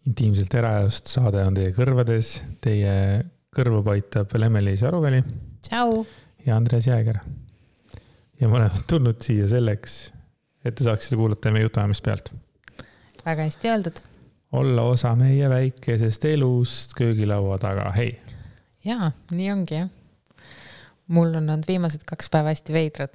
Intiimselt eraelust saade on teie kõrvades. Teie kõrva paitab Lemmelis Aruväli. Tšau! Ja Andres Jääger. Ja ma olen tulnud siia selleks, et te saaksite kuulata meie jutuajamist pealt. Väga hästi öeldud. Olla osa meie väikesest elust köögilaua taga. Hei! Jaa, nii ongi jah. Mul on olnud viimased 2 päeva hästi veidrad.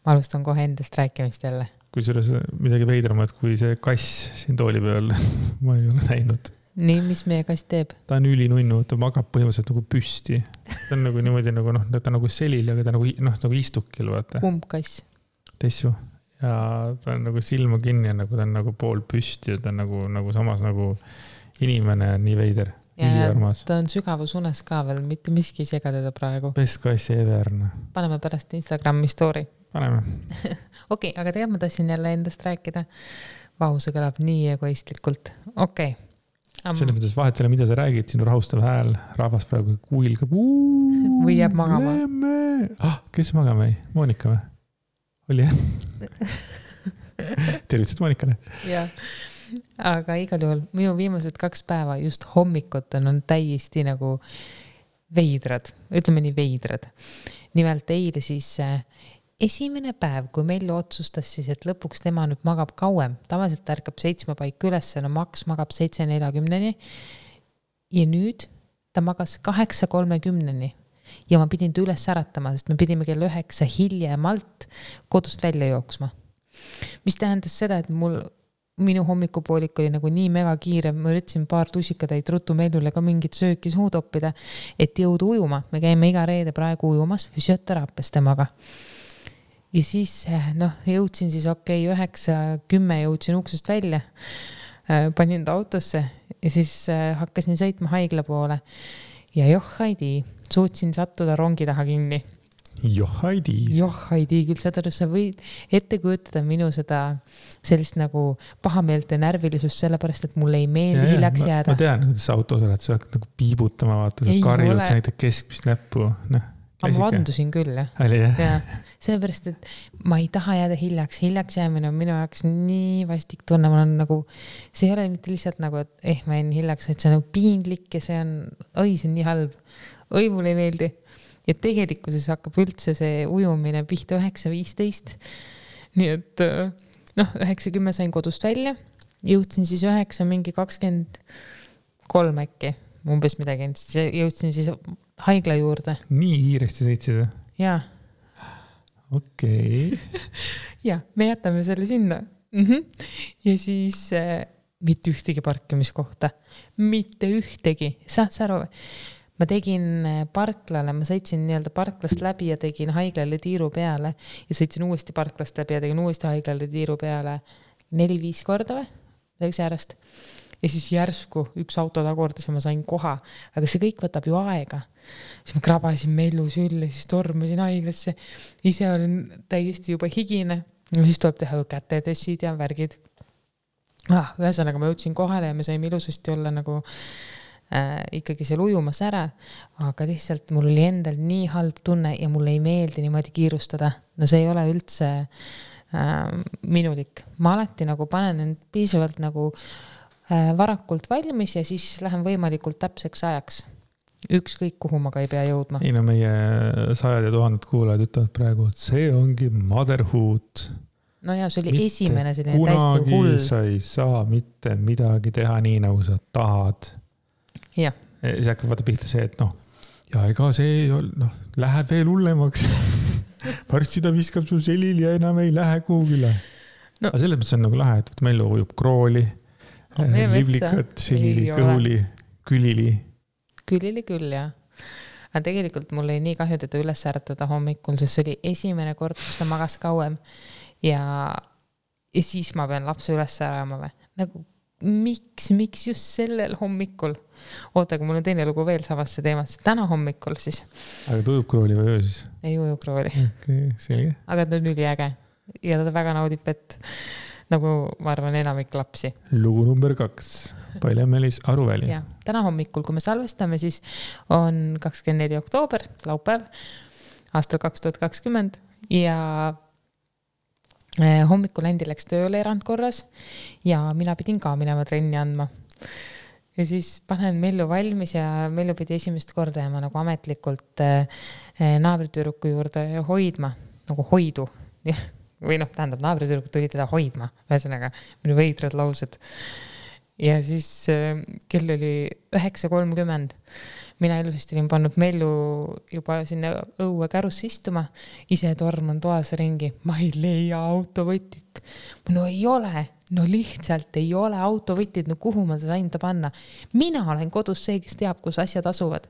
Ma alustan kohe endast rääkimist jälle. Kui selles midagi veidramat kui see kass siin tooli peal, ma ei ole näinud. Nii, mis meie kass teeb? Ta on ülinunnu, ta magab põhimõtteliselt nagu püsti. Ta on nagu niimoodi nagu, ta on nagu selil, aga ta nagu istukil, vaata. Kumb kass? Tessu. Ja ta on nagu silma kinni ja nagu ta on nagu pool püsti ja ta on nagu samas nagu inimene on nii veider. Ja ta on sügavusunes ka veel, mitte miski sega teda praegu. Best kass ever. Paneme pärast Instagrami story. Paneme. Okei, aga tegelikult ma tahtsin jälle endast rääkida. Vau, see kõlab nii egoistlikult. Okei. Selles mõttes vahet ei ole, mida sa räägid, sinu rahustav hääl, rahvas praegu kuilgab. Või jääb magama. Kes magama ei? Monika või? Oli jah? Tervitsid Monikale. Jah. Aga igal juhul minu viimased 2 päeva just hommikut on täiesti nagu veidrad. Ütleme nii veidrad. Nimelt eile siis esimene päev, kui meil otsustas siis, et lõpuks tema nüüd magab kauem. Tavaliselt ta ärkab 7 paik üles, no Max magab 7:40. Ja nüüd ta magas 8:30. Ja ma pidin ta üles äratama, sest me pidime kell 9 hiljemalt kodust välja jooksma. Mis tähendas seda, et minu hommikupoolik oli nagu nii mega kiire, ma üritasin paar tusikatäid ruttu meelule ka mingit sööki suud oppida, et jõuda ujuma. Me käime iga reede praegu ujumas füsioteraapias temaga. Ja siis jõudsin siis 9:10 jõudsin uksest välja, panin ta autosse ja siis hakkasin sõitma haigla poole. Ja Haidi, suutsin sattuda rongi taha kinni. Haidi, küll seda sa võid ette kujutada minu seda sellist nagu pahameelt ja närvilisust, sellepärast, et mulle ei meeldi hiljaks jääda. Ma tean, kuidas autos oled, sa hakkad nagu piibutama, vaata, sa karjud, sa näitad keskmist näppu. Ma vandusin küll, jah. Oli jah? Ja, sellepärast, et ma ei taha jääda hiljaks. Hiljaks jäämine on minu jaoks nii vastik tunne. Ma olen nagu, see ei ole mitte lihtsalt nagu, et ma jäin hiljaks, et see on nagu piinlik ja see on nii halb. Mulle ei meeldi. Ja tegelikkuses hakkab üldse see ujumine pihta 9:15. Nii et 9:10 sain kodust välja. Jõudsin siis 9:23 äkki. Umbes midagi. Jõudsin siis haigla juurde. Nii kiiresti sõitsid? Jaa. Okei. Ja, me jätame selle sinna. Ja siis mitte ühtegi parkimiskohta. Mitte ühtegi. Saad sa aru? Ma tegin parklale, ma sõitsin nii-öelda parklast läbi ja tegin haiglale tiiru peale ja sõitsin uuesti parklast läbi ja tegin uuesti haiglale tiiru peale 4-5 korda või? Selleks järjest. Ja siis järsku üks auto takordas ja ma sain koha. Aga see kõik võtab ju aega. Siis ma krabasin mellu sülle, siis tormasin haiglasse. Ise olin täiesti juba higine. Ja siis tuleb teha kätetessid ja värgid. Ühesõnaga ma jõudsin kohale ja me saime ilusasti olla nagu ikkagi seal ujumas ära, aga lihtsalt mul oli endal nii halb tunne ja mulle ei meeldi niimoodi kiirustada. No see ei ole üldse minulik. Ma alati nagu panen end piisavalt nagu varakult valmis ja siis lähen võimalikult täpseks ajaks. Ükskõik kuhu ma ka ei pea jõudma. Ei no meie 100 ja 1000 kuulajad ütlevad praegu, et see ongi motherhood. No ja see oli esimene selline täiesti hull. Kunagi sa ei saa mitte midagi teha nii, nagu sa tahad. Ja. See hakkab vaata pihta see, et ja ega see läheb veel hullemaks. Varsti ta viskab sul selil ja enam ei lähe kuhugile. Aga selles mõttes on nagu lahe, et meil ujub krooli, livlikat, selili, kõhuli, külili. Külili küll, jah. Aga tegelikult mul oli nii kahju teda üles äratada hommikul, sest see oli esimene kord, kus ta magas kauem ja siis ma pean lapse üles ärama või. Nagu miks just sellel hommikul? Oota, kui mul on teine lugu veel samasse teemasse. Täna hommikul siis. Aga ta ujub krooli või öö siis? Ei uju krooli. Okay, selge. Aga ta on üliäge ja ta väga naudib, et nagu ma arvan enamik lapsi. Lugu number 2. Lemmelis Aruväli. Ja, täna hommikul, kui me salvestame, siis on 24. oktoober, laupäev, aastal 2020 ja hommikul Andi läks tööle erandkorras ja mina pidin ka minema trenni andma. Ja siis panen Mellu valmis ja Mellu pidi esimest korda jääma nagu ametlikult naabritüdruku juurde hoidma, nagu hoidu. Või noh, tähendab, naabritüdruk tuli teda hoidma, ühesõnaga minu veidrad laused. Ja siis kell oli 9:30. Mina ilusasti olin pannud Mellu juba sinna õue kärusse istuma, ise torman toas ringi. Ma ei leia autovõtit. No ei ole. No lihtsalt ei ole autovõtid, no kuhu ma sain ta panna. Mina olen kodus see, kes teab, kus asjad asuvad.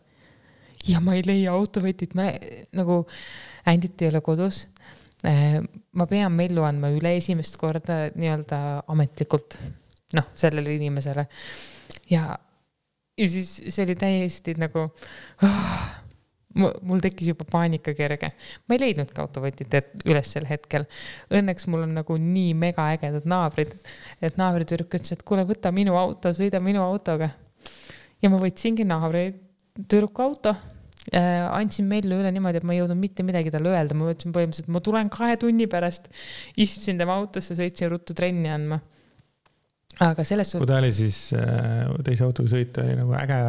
Ja ma ei leia autovõtit. Ma nagu Ändit ei ole kodus. Ma pean Mellu andma üle esimest korda nii-öelda ametlikult sellele inimesele. Ja siis see oli täiesti nagu mul tekkis juba paanika kerge. Ma ei leidnud ka autovõtit üles sel hetkel. Õnneks mul on nagu nii mega ägedad naabrid, et naabritüdruk ütles, et kuule, võta minu auto, sõida minu autoga. Ja ma võtsingi naabritüdruku auto. Andsin Mellu üle niimoodi, et ma ei jõudnud mitte midagi talle öelda. Ma võtsin põhimõtteliselt, et ma tulen 2 tunni pärast. Istusin tema autosse, sõitsin ruttu trenni andma. Aga selles kui ta oli siis teise autoga sõita, oli nagu äge.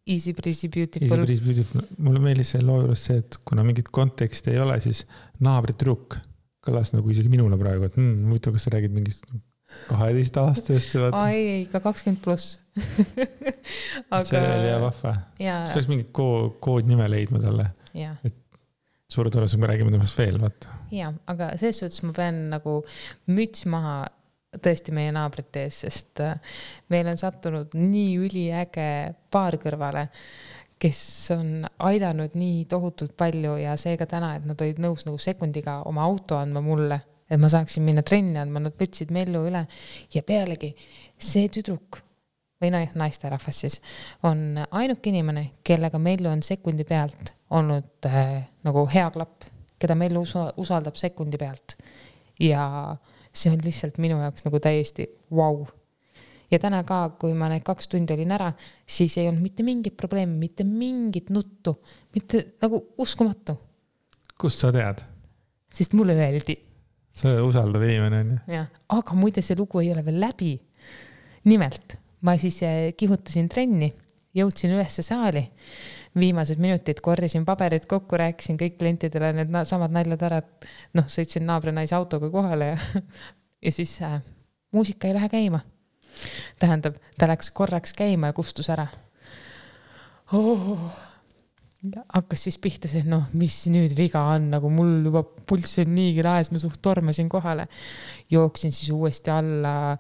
Easy breezy beautiful. Mulle meelis see loo juures see, et kuna mingit konteksti ei ole, siis naabritüdruk kõlas nagu isegi minule praegu, et muidu, kas sa räägid mingist 12 aastast? Ei, ka 20+. Aga... See oli hea vahva. Siis peaks mingit koodnime leidma talle. Et suure tõenäosusega me räägime temast veel, vaata. Ja, aga selles suhtes ma pean nagu müts maha tõesti meie naabrite ees, sest meil on sattunud nii üliäge paar kõrvale, kes on aidanud nii tohutult palju ja seega täna, et nad olid nõus nagu sekundiga oma auto andma mulle, et ma saaksin minna trenni andma, nad võtsid Mellu üle ja pealegi see tüdruk või naisterahvas siis on ainuke inimene, kellega Mellu on sekundi pealt olnud nagu hea klapp, keda Mellu usaldab sekundi pealt ja see on lihtsalt minu jaoks nagu täiesti wow. Ja täna ka, kui ma need 2 tundi olin ära, siis ei olnud mitte mingit probleemi, mitte mingit nuttu, mitte nagu uskumatu. Kust sa tead? Sest mulle öeldi. See usaldav inimene on. Ja, aga muide see lugu ei ole veel läbi. Nimelt, ma siis kihutasin trenni, jõudsin ülesse saali. Viimased minutid korjasin paberid kokku, rääkisin kõik klientidele need samad naljad ära, et sõitsin naabrinaise autoga kohale ja siis muusika ei lähe käima. Tähendab, ta läks korraks käima ja kustus ära. Hakkas siis pihta see, mis nüüd viga on, nagu mul juba pulss on niigi laes, ma suht tormasin kohale. Jooksin siis uuesti alla,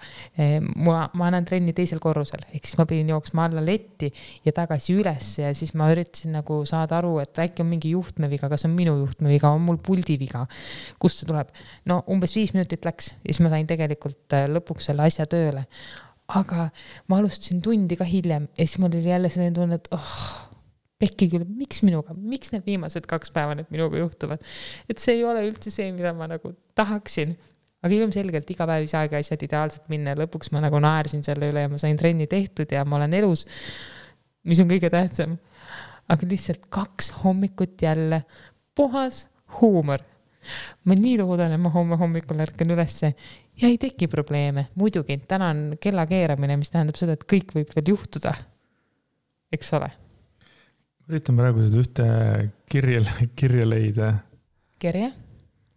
ma annan trenni teisel korrusel, ehk siis ma pidin jooksma alla letti ja tagasi üles ja siis ma üritasin nagu saada aru, et äkki on mingi juhtmeviga, kas on minu juhtmeviga, on mul puldiviga, kust see tuleb. Umbes 5 minutit läks ja siis ma sain tegelikult lõpuks selle asja tööle. Aga ma alustasin tundi ka hiljem ja siis mul oli jälle selline tunne, et pekki küll, miks minuga, miks need viimased 2 päeva need minuga juhtuvad. Et see ei ole üldse see, mida ma nagu tahaksin. Aga ilmselgelt iga päev ei saagi asjad ideaalselt minna. Lõpuks ma nagu naersin selle üle ja ma sain trenni tehtud ja ma olen elus, mis on kõige tähtsam. Aga lihtsalt 2 hommikut jälle puhas huumor. Ma nii loodan, et ma homme hommikul ärkan ülesse ja ei teki probleeme. Muidugi, täna on kella keeramine, mis tähendab seda, et kõik võib veel juhtuda. Eks ole? Üritan praegu seda ühte kirja leida. Kirja?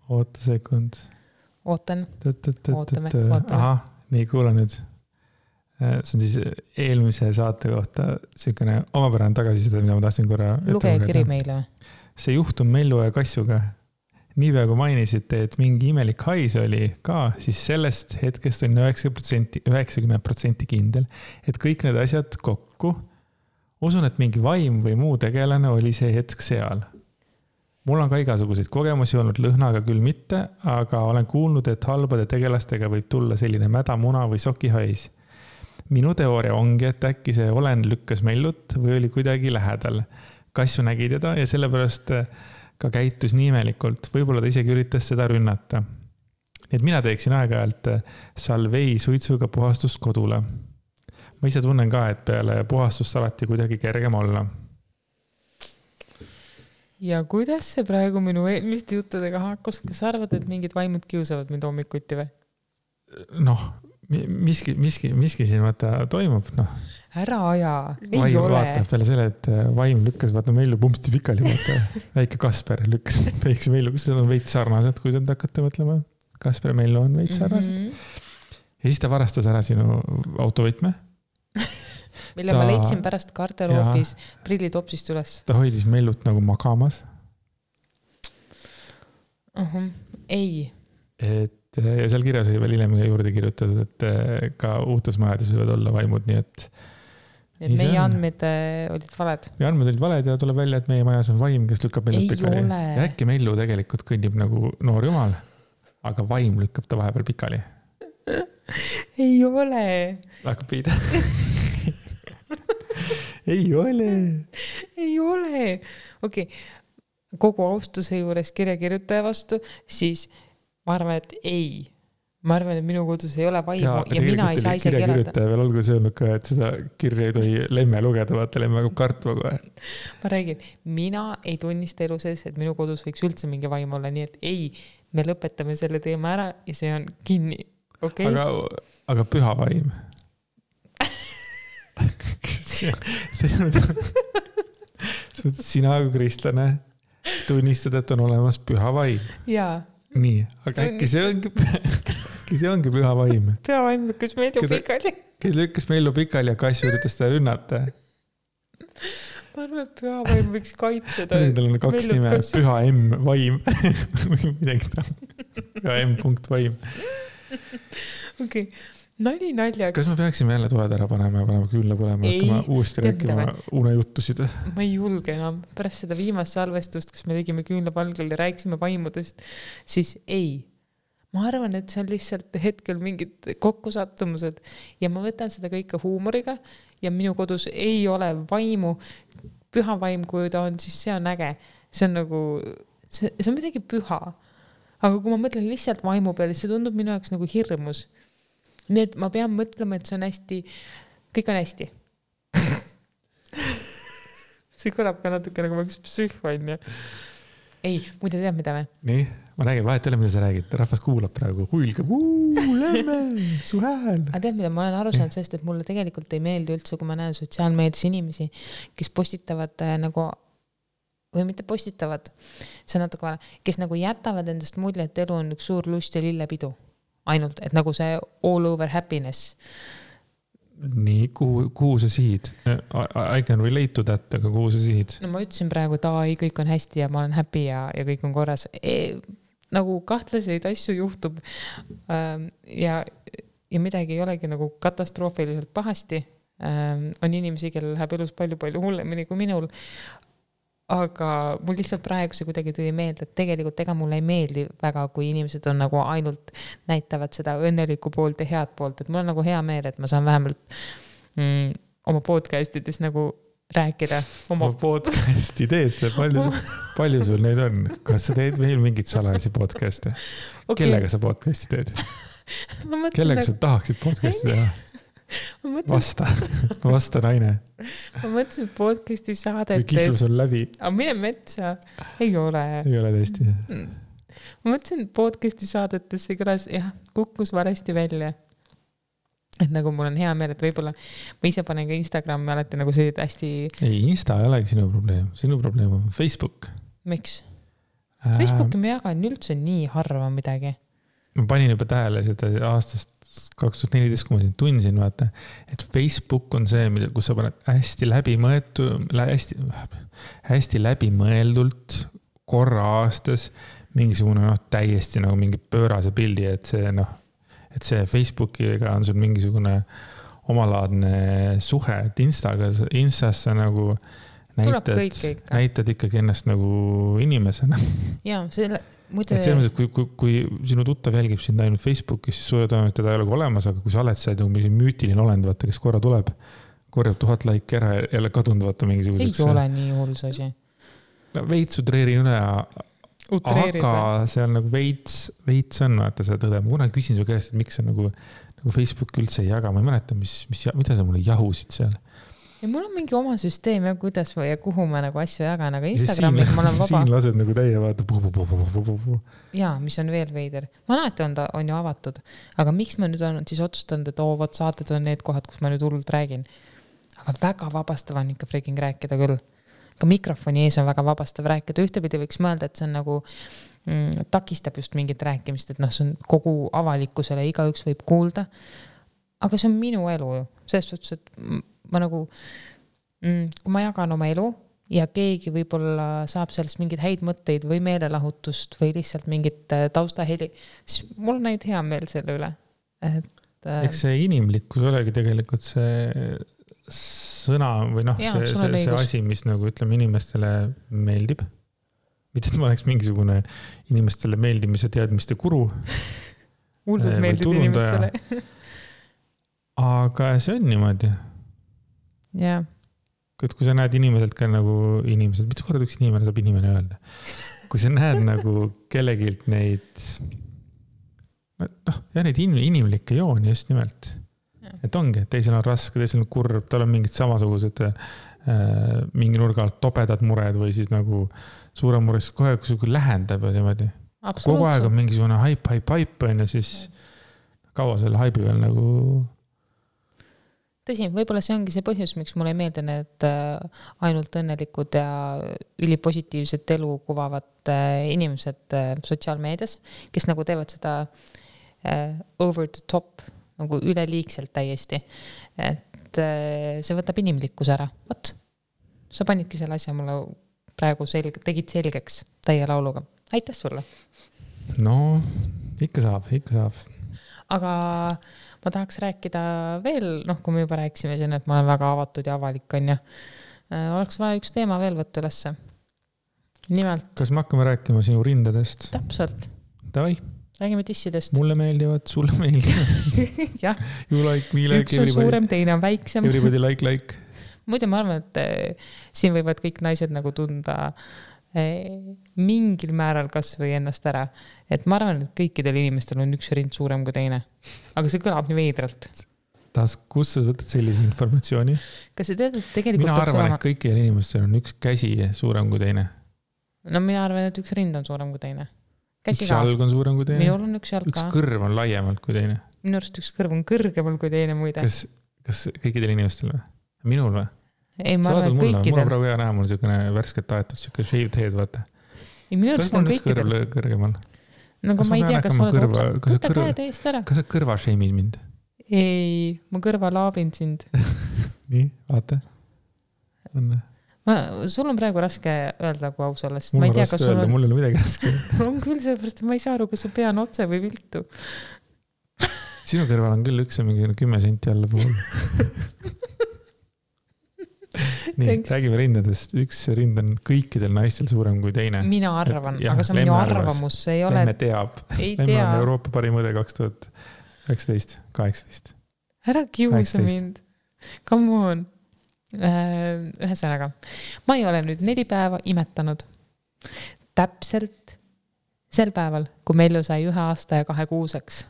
Oota sekund. Ootan. Ootame. Aha, nii kuula nüüd. See on siis eelmise saate kohta selline omapärane tagasiside, mida ma tahtsin korra luge kiri meile. See juhtum Mellu ja Kassuga. Niipea kui mainisite, et mingi imelik hais oli ka, siis sellest hetkest on 90% kindel, et kõik need asjad kokku. Usun, et mingi vaim või muu tegelane oli see hetk seal. Mul on ka igasuguseid kogemusi olnud lõhnaga küll mitte, aga olen kuulnud, et halbade tegelastega võib tulla selline mäda muna või sokihais. Minu teooria ongi, et äkki see olen lükkas Mellut või oli kuidagi lähedal. Kassu nägi teda ja sellepärast ka käitus nii imelikult. Võib-olla ta isegi üritas seda rünnata. Et mina teeksin aeg-ajalt salvei suitsuga puhastust kodule. Ma ise tunnen ka, et peale puhastust alati kuidagi kergem olla. Ja kuidas see praegu minu eelmiste juttudega haakus? Kas arvad, et mingid vaimud kiusavad mind hommikuti või? miski siin vaata toimub, noh. Ära aja, ei vaim ole. Vaatab peale selle, et vaim lükkas vaata Mellu pumpsti pikali, vaata väike Kasper lükkas väikse Mellu, kus on veits sarnased, kui te hakkate mõtlema. Kasper ja Mellu on veits sarnased. Ja siis ta varastas ära sinu autovõtme. Mille ma leidsin pärast garderoobis prillitopsist üles. Ta hoidis Mellut nagu magamas. Ei. Ja seal kirjas oli veel hiljem juurde kirjutatud, et ka uutes majades võivad olla vaimud, nii et meie andmed olid valed. Meie andmed olid valed ja tuleb välja, et meie majas on vaim, kes lükkab Mellut pikali. Ja äkki Mellu tegelikult kõnnib nagu noor jumal, aga vaim lükkab ta vahepeal pikali. Ei ole. Hakkab piida. Ei ole. Ei ole. Okei, kogu austuse juures kirjakirjutaja vastu, siis ma arvan, et ei. Ma arvan, et minu kodus ei ole vaimu ja mina ei saa isegi elada. Kirjakirjutaja veel olgu söönud ka, et seda kirja ei tohi lemme lugeda, vaata lemme hakkab kartma kohe. Ma räägin, mina ei tunnista elu sees, et minu kodus võiks üldse mingi vaim olla, nii et ei, me lõpetame selle teema ära ja see on kinni. Okay? Aga püha vaim. Sina kui kristlane tunnistad, et on olemas püha vaim. Jaa. Nii, aga äkki see ongi püha vaim. Püha vaim lükkas Mellu pikali. Kes lükkas Mellu pikali ja Kass üritas seda rünnata. Ma arvan, et püha vaim võiks kaitseda. Tal on 2 nime, püha M vaim. Midagi ta. Püha M punkt vaim. Okei. Nali naljaga. Kas me peaksime jälle toed ära panema ja panema küünla põlema, hakkama uuesti rääkima unejuttusid? Ma ei julge enam. Pärast seda viimast salvestust, kus me tegime küünla palgal ja rääkisime vaimudest, siis ei. Ma arvan, et see on lihtsalt hetkel mingid kokkusattumused ja ma võtan seda kõike huumoriga ja minu kodus ei ole vaimu. Püha vaim, kui ta on, siis see on äge. See on nagu, see on midagi püha. Aga kui ma mõtlen lihtsalt vaimu peale, see tundub minu jaoks nagu hirmus. Nii et ma pean mõtlema, et see on hästi, kõik on hästi. See kõlab ka natuke nagu üks psühhoon. Ei, muide tead mida või? Nii, ma räägin, vahet ole, mida sa räägid. Rahvas kuulab praegu, huilgab, lämme, su hääl. Aga tead mida, ma olen aru saanud sellest, et mulle tegelikult ei meeldi üldse, kui ma näen sotsiaalmeedias inimesi, kes postitavad nagu, või mitte postitavad, see on natuke vale, kes nagu jätavad endast mulje, et elu on üks suur lust ja lillepidu. Ainult, et nagu see all over happiness. Nii, kuhu sa sihid? I can relate to that, aga kuhu sa sihid? No ma ütlesin praegu, et kõik on hästi ja ma olen happy ja kõik on korras. Nagu kahtlaseid asju juhtub ja midagi ei olegi nagu katastroofiliselt pahasti. On inimesi, kellel läheb elus palju hullemini kui minul. Aga mul lihtsalt praegu see kuidagi tuli meelde, et tegelikult ega mulle ei meeldi väga, kui inimesed on nagu ainult näitavad seda õnnelikku poolt ja head poolt, et mul on nagu hea meel, et ma saan vähemalt oma podcastides nagu rääkida. Oma podcasti teed, palju sul neid on? Kas sa teed veel mingit salajasi podcasti? Okay. Kellega sa podcasti teed? Kellega sa tahaksid podcasti teha? Vasta naine. Ma mõtlesin podcasti saadetes. Või kihlus on läbi. Aga mine metsa. Ei ole. Ei ole tõesti. Ma mõtlesin podcasti saadetes, see kõlas, kukkus varesti välja. Et nagu mul on hea meel, et võib-olla ma ise panen ka Instagrami alati nagu see hästi... Ei, Insta ei olegi sinu probleem. Sinu probleem on Facebook. Miks? Facebooki ma jagan üldse nii harva midagi. Ma panin juba tähele seda aastast 2014, kui ma siin tundsin, vaata, et Facebook on see, kus sa paned hästi läbimõeldult korra aastas mingisugune täiesti nagu mingi pöörase pildi, et see Facebookiga on sul mingisugune omalaadne suhe, et Instas sa nagu näitad ikkagi ennast nagu inimesena. Jaa, selle... Et selles mõttes, kui sinu tuttav jälgib sind ainult Facebookis, siis suure tõenäoliselt teda ei ole olemas, aga kui sa oled see mingi müütiline olend, vaata, kes korra tuleb, korjab 1000 laiki ära ja jälle kadunud, vaata mingisuguseks. Ei ole nii hull see asi. Veits utreerin üle, aga seal nagu veits on, vaata seda tõde. Ma kuna küsin su käest, et miks sa nagu Facebook üldse ei jaga, ma ei mäleta, mida sa mulle jahusid seal. ja mul on mingi oma süsteem ja kuidas või ja kuhu ma nagu asju jagan, aga Instagramiga ma olen vaba. Siin lased nagu täie vaata. Jaa, mis on veel veider. Ma alati on ju avatud. Aga miks ma nüüd olen siis otsustanud, et vot saated on need kohad, kus ma nüüd hullult räägin. Aga väga vabastav on ikka freaking rääkida küll. Ka mikrofoni ees on väga vabastav rääkida. Ühtepidi võiks mõelda, et see on nagu takistab just mingit rääkimist, et see on kogu avalikkusele, igaüks võib kuulda. Aga see on minu elu ju. Selles suhtes, et ma nagu, kui ma jagan oma elu ja keegi võib-olla saab sellest mingid häid mõtteid või meelelahutust või lihtsalt mingit taustaheli, siis mul on näid hea meel selle üle. Eks see inimlikkus olegi tegelikult see sõna või see asi, mis nagu ütleme inimestele meeldib. Mitte, et ma oleks mingisugune inimestele meeldimise teadmiste guru. Hullult meeldib inimestele. Aga see on niimoodi. Jah. Kui sa näed inimeselt ka nagu inimesed, mitu korda üks inimene saab inimene öelda? Kui sa näed nagu kellegilt neid neid inimlikke jooni just nimelt. Et ongi, et teisel on raske, teisel on kurb, tal on mingid samasugused mingi nurga alt tobedad mured või siis nagu suurem mures kohe, kui lähendab ja niimoodi. Kogu aeg on mingisugune haip on ja siis kaua selle haibi veel nagu... Tõsi, võib-olla see ongi see põhjus, miks mulle ei meeldi need ainult õnnelikud ja ülipositiivset elu kuvavad inimesed sotsiaalmeedias, kes nagu teevad seda over the top, nagu üleliigselt täiesti. Et see võtab inimlikkus ära. Võt, sa panidki selle asja mulle praegu tegid selgeks täie lauluga. Aitäh sulle! No, ikka saab. Aga ma tahaks rääkida veel, kui me juba rääkisime siin, et ma olen väga avatud ja avalik on ja oleks vaja üks teema veel võtta ülesse. Nimelt. Kas me hakkame rääkima sinu rindadest? Täpselt. Davai. Räägime tissidest. Mulle meeldivad, sulle meeldivad. Jah. You like, me like, üks on suurem, teine on väiksem. Everybody like. Muidu ma arvan, et siin võivad kõik naised nagu tunda mingil määral kas või ennast ära. Et ma arvan, et kõikidel inimestel on üks rind suurem kui teine. Aga see kõlab nii veidralt. Kus sa võtad sellise informatsiooni? Kas sa tead, et tegelikult... Mina arvan, et kõikidel inimestel on üks käsi suurem kui teine. No mina arvan, et üks rind on suurem kui teine. Üks jalg on suurem kui teine. Minul on üks jalg ka. Üks kõrv on laiemalt kui teine. Minu arust üks kõrv on kõrgemal kui teine muide. Kas kõikidel inimestel või? Minul või? Ei, ma arvan, et kõikidel. Mul on praegu hea näha, mul on värsket aetud, shaved head, vaata. Kas on üks kõrv kõrgemal? No kui ma ei tea, kas oled otsad. Võta käe teist ära. Kas sa kõrva shameid mind? Ei, ma kõrva laabin sind. Nii, vaata. Sul on praegu raske öelda, kui aus olla. Mul on raske öelda, mul ei ole midagi raske. On küll sellepärast, et ma ei saa aru, kas su pea on otse või viltu. Sinu kõrval on küll üks mingi 10 senti alla puhul. Nii, räägime rindadest. Üks rind on kõikidel naistel suurem kui teine. Mina arvan, aga see on minu arvamus. Lemme teab. Lemme on Euroopa parim õde 2019, 18. Ära kiusa mind. Come on. Ühesõnaga. Ma ei ole nüüd 4 päeva imetanud. Täpselt sel päeval, kui Mellu sai 1 aasta ja 2 kuuseks.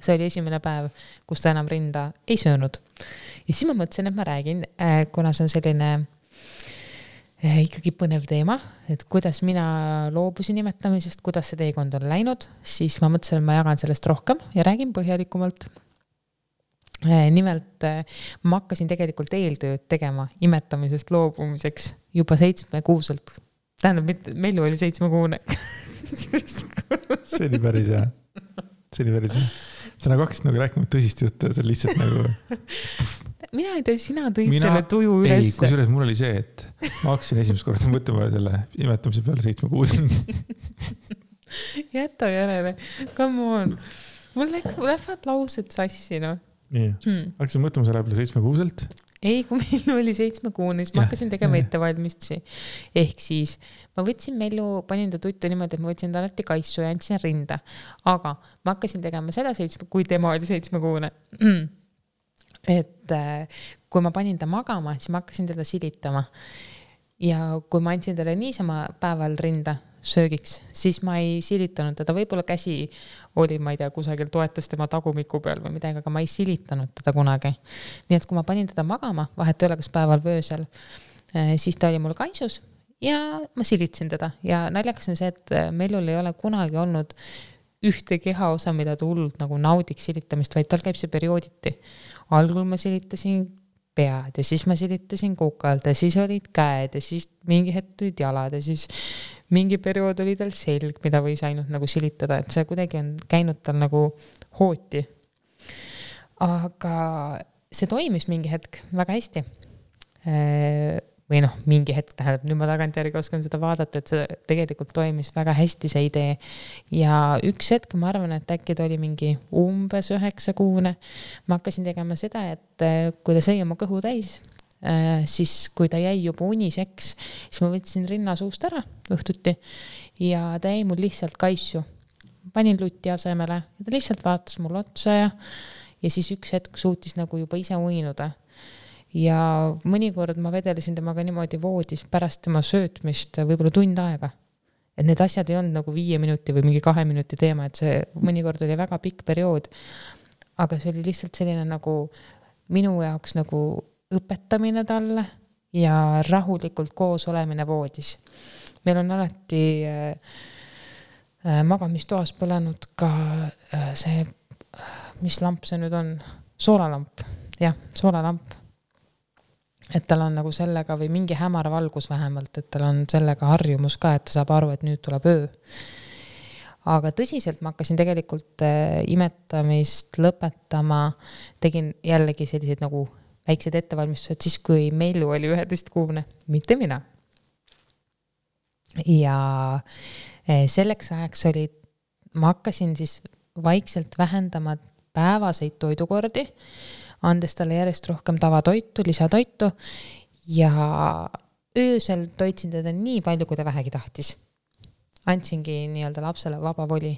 See oli esimene päev, kus ta enam rinda ei söönud. Ja siis ma mõtlesin, et ma räägin, kuna see on selline ikkagi põnev teema, et kuidas mina loobusin imetamisest, kuidas see teekond on läinud, siis ma mõtlesin, et ma jagan sellest rohkem ja räägin põhjalikumalt. Nimelt ma hakkasin tegelikult eeltööd tegema imetamisest loobumiseks juba 7-kuuselt. Tähendab, Mellu oli 7-kuune. See oli päris hea. Sa nagu hakkasid nagu rääkima tõsist juttu, see lihtsalt nagu... Mina ei tea, sina tõid selle tuju üles. Ei, kusjuures mul oli see, et ma hakkasin esimest korda mõtlema selle imetamise peale 7-kuuselt. Jäta järele. Come on. Mul lähevad laused sassi, no. Nii. Hakkasin mõtlema selle peale 7-kuuselt. Ei, kui meil oli 7-kuune, siis ma hakkasin tegema ettevalmistusi. Ehk siis ma võtsin Mellu, panin ta tuttu niimoodi, et ma võtsin ta alati kaissu ja andsin rinda. Aga ma hakkasin tegema seda 7, kui tema oli 7-kuune. Et kui ma panin ta magama, siis ma hakkasin teda silitama. Ja kui ma andsin talle niisama päeval rinda, söögiks, siis ma ei silitanud teda, võib-olla käsi oli, ma ei tea, kusagil toetas tema tagumiku peal või midagi, aga ma ei silitanud teda kunagi. Nii et kui ma panin teda magama, vahet ei ole kas päeval või öösel, siis ta oli mul kaisus ja ma silitsin teda ja naljakas on see, et Mellul ei ole kunagi olnud ühte kehaosa, mida ta hullult nagu naudiks silitamist, vaid tal käib see periooditi. Algul ma silitasin pead ja siis ma silitasin kukalt ja siis olid käed ja siis mingi hetk tulid jalad ja siis mingi periood oli tal selg, mida võis ainult nagu silitada, et see kuidagi on käinud tal nagu hooti. Aga see toimis mingi hetk väga hästi. Või noh, mingi hetk tähendab, nüüd ma tagantjärgi oskan seda vaadata, et see tegelikult toimis väga hästi see idee. Ja üks hetk, ma arvan, et äkki ta oli mingi umbes 9 kuune. Ma hakkasin tegema seda, et kui ta sõi oma kõhu täis, siis kui ta jäi juba uniseks, siis ma võtsin rinna suust ära õhtuti ja ta jäi mul lihtsalt kaisu. Panin lutti asemele ja ta lihtsalt vaatas mul otsa ja siis üks hetk suutis nagu juba ise uinuda. Ja mõnikord ma vedelesin temaga niimoodi voodis pärast tema söötmist võib-olla tund aega. Et need asjad ei olnud nagu 5 minuti või mingi 2 minuti teema, et see mõnikord oli väga pikk periood. Aga see oli lihtsalt selline nagu minu jaoks nagu õpetamine talle ja rahulikult koos olemine voodis. Meil on alati magamistoas põlenud ka see, mis lamp see nüüd on? Soolalamp. Jah, soolalamp. Et tal on nagu sellega või mingi hämar valgus vähemalt, et tal on sellega harjumus ka, et ta saab aru, et nüüd tuleb öö. Aga tõsiselt ma hakkasin tegelikult imetamist lõpetama, tegin jällegi selliseid nagu väiksed ettevalmistused siis, kui Mellu oli 11 kuune, mitte mina. Ja selleks ajaks oli, ma hakkasin siis vaikselt vähendama päevaseid toidukordi, andes talle järjest rohkem tavatoitu, lisatoitu ja öösel toitsin teda nii palju, kui ta vähegi tahtis. Andsingi nii-öelda lapsele vaba voli.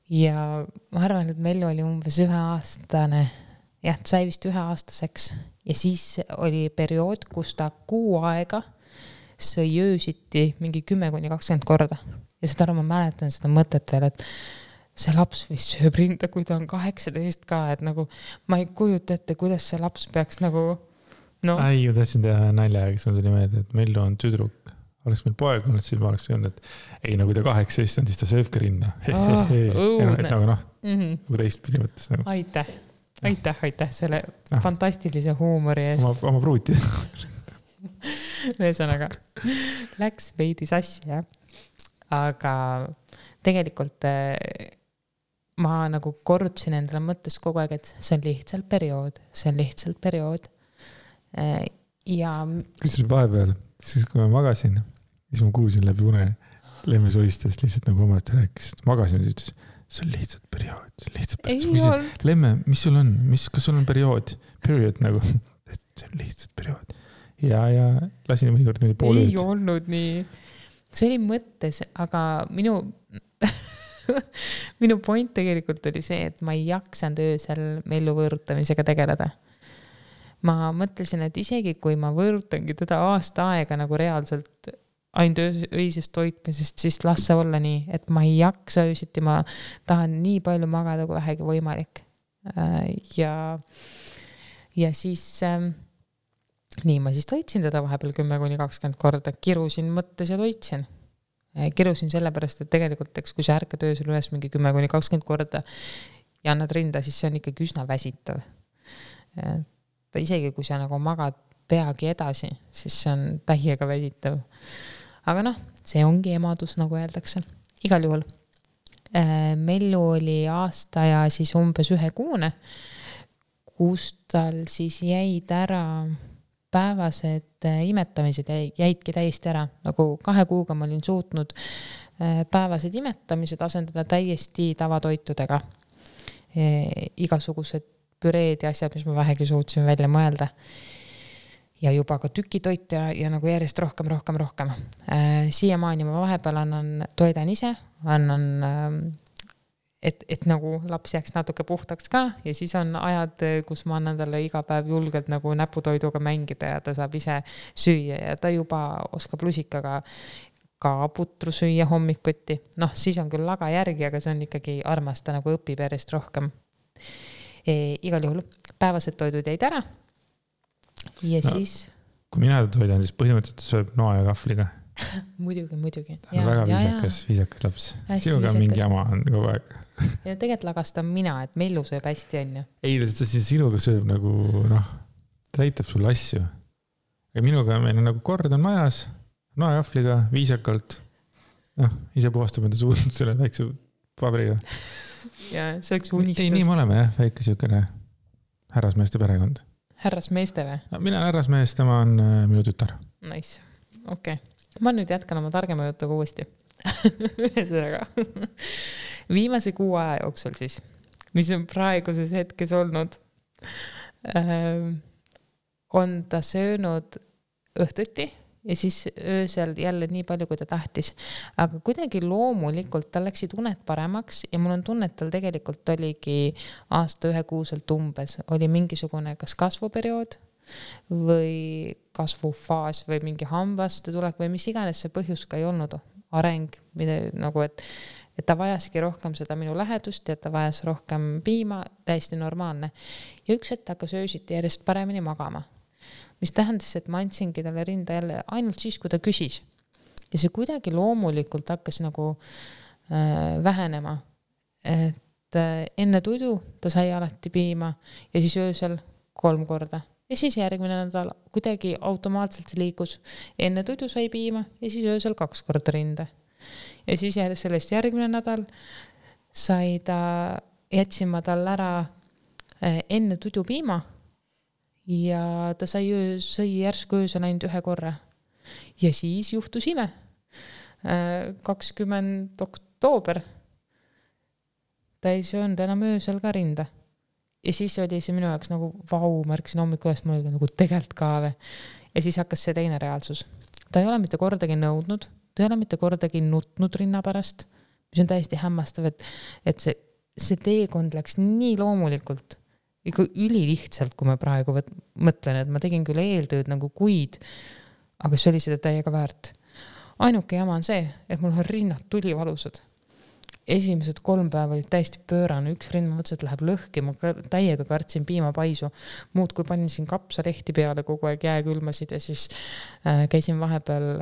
Ja ma arvan, et Mellu oli umbes 1-aastane. Jah, ta sai vist 1-aastaseks. Ja siis oli periood, kus ta 6 aega sõi öösiti mingi 10-20 korda. Ja seda ma mäletan seda mõtet veel, et see laps vist sööb rinda, kui ta on 18 ka, et nagu ma ei kujuta ette, kuidas see laps peaks nagu no. Ei, ma tahtsin teha nalja, kes mul tuli meelde, et Mellu on tüdruk. Oleks meil poeg olnud, siis ma oleks öelnud, et ei, nagu ta 18 on, siis ta sööbki rinda. Nagu noh, nagu teistpidi mõttes. Nagu. Aitäh selle fantastilise huumori eest. Oma pruuti. Ühesõnaga, läks veidi sassi, jah. Aga tegelikult ma nagu korrutasin endale mõttes kogu aeg, et see on lihtsalt periood. Ja kus nüüd vahepeal, siis kui ma magasin, siis ma kuulsin läbi une Lemme soistas lihtsalt nagu omalt rääkis, magasin ja ütles, see on lihtsalt periood. Lemme, mis sul on? Kas sul on periood nagu, see on lihtsalt periood. Ja lasin mõnikord niimoodi pool ööd. Ei olnud nii. See oli mõttes, aga minu point tegelikult oli see, et ma ei jaksanud öösel Mellu võõrutamisega tegeleda. Ma mõtlesin, et isegi kui ma võõrutangi teda aasta aega nagu reaalselt ainult öisest toitmisest, siis las see olla nii, et ma ei jaksa öösiti, ma tahan nii palju magada kui vähegi võimalik. Ja siis nii ma siis toitsin teda vahepeal 10-20 korda, kirusin mõttes ja toitsin. Kirusin sellepärast, et tegelikult kui sa ärkad öösel üles mingi 10-20 korda ja annad rinda, siis see on ikkagi üsna väsitav. Isegi kui sa nagu magad peagi edasi, siis see on täiega väsitav. Aga noh, see ongi emadus, nagu öeldakse. Igal juhul. Mellu oli aasta ja siis umbes 1 kuune, kus tal siis jäid ära päevased imetamised jäidki täiesti ära. Nagu 2 kuuga ma olin suutnud päevased imetamised asendada täiesti tavatoitudega. Igasugused püreed ja asjad, mis ma vähegi suutsin välja mõelda. Ja juba ka tükitoit ja nagu järjest rohkem. Siiamaani ma vahepeal toidan ise, et nagu laps jääks natuke puhtaks ka ja siis on ajad, kus ma annan talle iga päev julgelt nagu näputoiduga mängida ja ta saab ise süüa ja ta juba oskab lusikaga ka putru süüa hommikuti. Noh, siis on küll laga järgi, aga see on ikkagi armas, ta nagu õpib järjest rohkem. Igal juhul päevased toidud jäid ära. Ja siis... Kui mina toidan, siis põhimõtteliselt sööb noa ja kahvliga. Muidugi. Ta on väga viisakas laps. Sinuga mingi jama on kogu aeg. Ja tegelikult lagastan mina, et Mellu sööb hästi on ju. Ei, sinuga sööb nagu, ta näitab sulle asju. Ja minuga meil on nagu kord on majas, noa ja kahvliga, viisakalt. Ise puhastab enda suud selle väikse pabriga. Ja see oleks unistus. Ei, nii me oleme jah, väike siukene härrasmeeste perekond. Härrasmeeste või? Mina härrasmees, tema on minu tütar. Nice, okei. Ma nüüd jätkan oma targema jutuga uuesti. Ühesõnaga. Viimase 6 aja jooksul siis, mis on praeguses hetkes olnud, on ta söönud õhtuti ja siis öösel jälle nii palju, kui ta tahtis. Aga kuidagi loomulikult tal läksid uned paremaks ja mul on tunne, et tal tegelikult oligi aasta 1 kuuselt umbes. Oli mingisugune kas kasvuperiood või kasvufaas või mingi hambaste tulek või mis iganes see põhjus ka ei olnud areng, mida, nagu et ta vajaski rohkem seda minu lähedust ja ta vajas rohkem piima, täiesti normaalne. Ja üks hetk hakkas öösiti järjest paremini magama, mis tähendas, et ma andsingi talle rinda jälle ainult siis, kui ta küsis. Ja see kuidagi loomulikult hakkas nagu vähenema, et enne tudu ta sai alati piima ja siis öösel 3 korda. Ja siis järgmine nädal kuidagi automaatselt see liikus. Enne tudu sai piima ja siis öösel 2 korda rinde. Ja siis sellest järgmine nädal jätsin ma tal ära enne tudu piima ja ta sai järsku öösel ainult 1 korra. Ja siis juhtus ime. 20. oktoober ta ei söönud enam öösel ka rinda. Ja siis oli see minu jaoks nagu vau, märksin hommikul üles, mul oli nagu tegelikult kaave. Ja siis hakkas see teine reaalsus. Ta ei ole mitte kordagi nõudnud, ta ei ole mitte kordagi nutnud rinna pärast, mis on täiesti hämmastav, et see teekond läks nii loomulikult, ikka ülilihtsalt, kui ma praegu mõtlen, et ma tegin küll eeltööd nagu kuid, aga see oli seda täiega väärt. Ainuke jama on see, et mul on rinnad tulivalusad. Esimesed 3 päeva olid täiesti pöörane, üks rind ma mõtlesin, et läheb lõhki, ma täiega kartsin piimapaisu, muud kui panin siin kapsalehti peale, kogu aeg jääkülmasid ja siis käisin vahepeal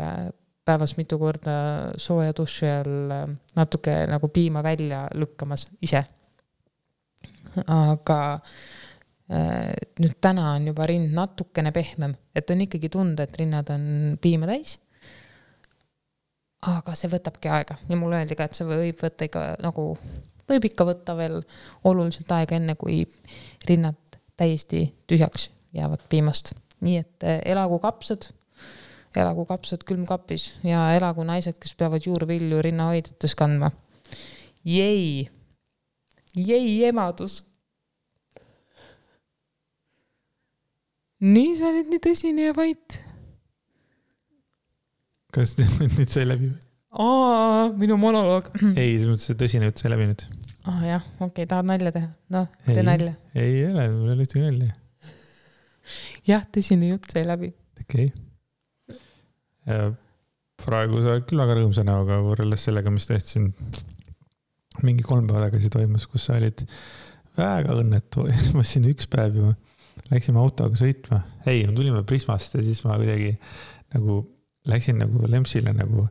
päevas mitu korda sooja duši all natuke nagu piima välja lükkamas ise. Aga nüüd täna on juba rind natukene pehmem, et on ikkagi tunda, et rinnad on piima täis. Aga see võtabki aega ja mulle öeldi ka, et see võib ikka võtta veel oluliselt aega enne, kui rinnad täiesti tühjaks jäävad piimast. Nii et elagu kapsad külmkapis ja elagu naised, kes peavad juurvilju rinnahoidetes kandma. Jei emadus. Nii sa oled nii tõsine ja vait. Kas nüüd sai läbi? Minu monoloog. Ei, see mõttes tõsine jutt sai läbi nüüd. Jah, okei, tahad nalja teha? No, tee nalja. Ei ole, mul ei ole ühtegi nalja. Jah, tõsine jutt sai läbi. Okei. Praegu sa küll väga rõõmsa näoga võrreldes sellega, mis tehti mingi 3 päeva tagasi toimus, kus sa olid väga õnnetu. Ma siin 1 päev ju läksime autoga sõitma. Ei, me tulime Prismast ja siis ma kuidagi nagu läksin nagu Lempsile nagu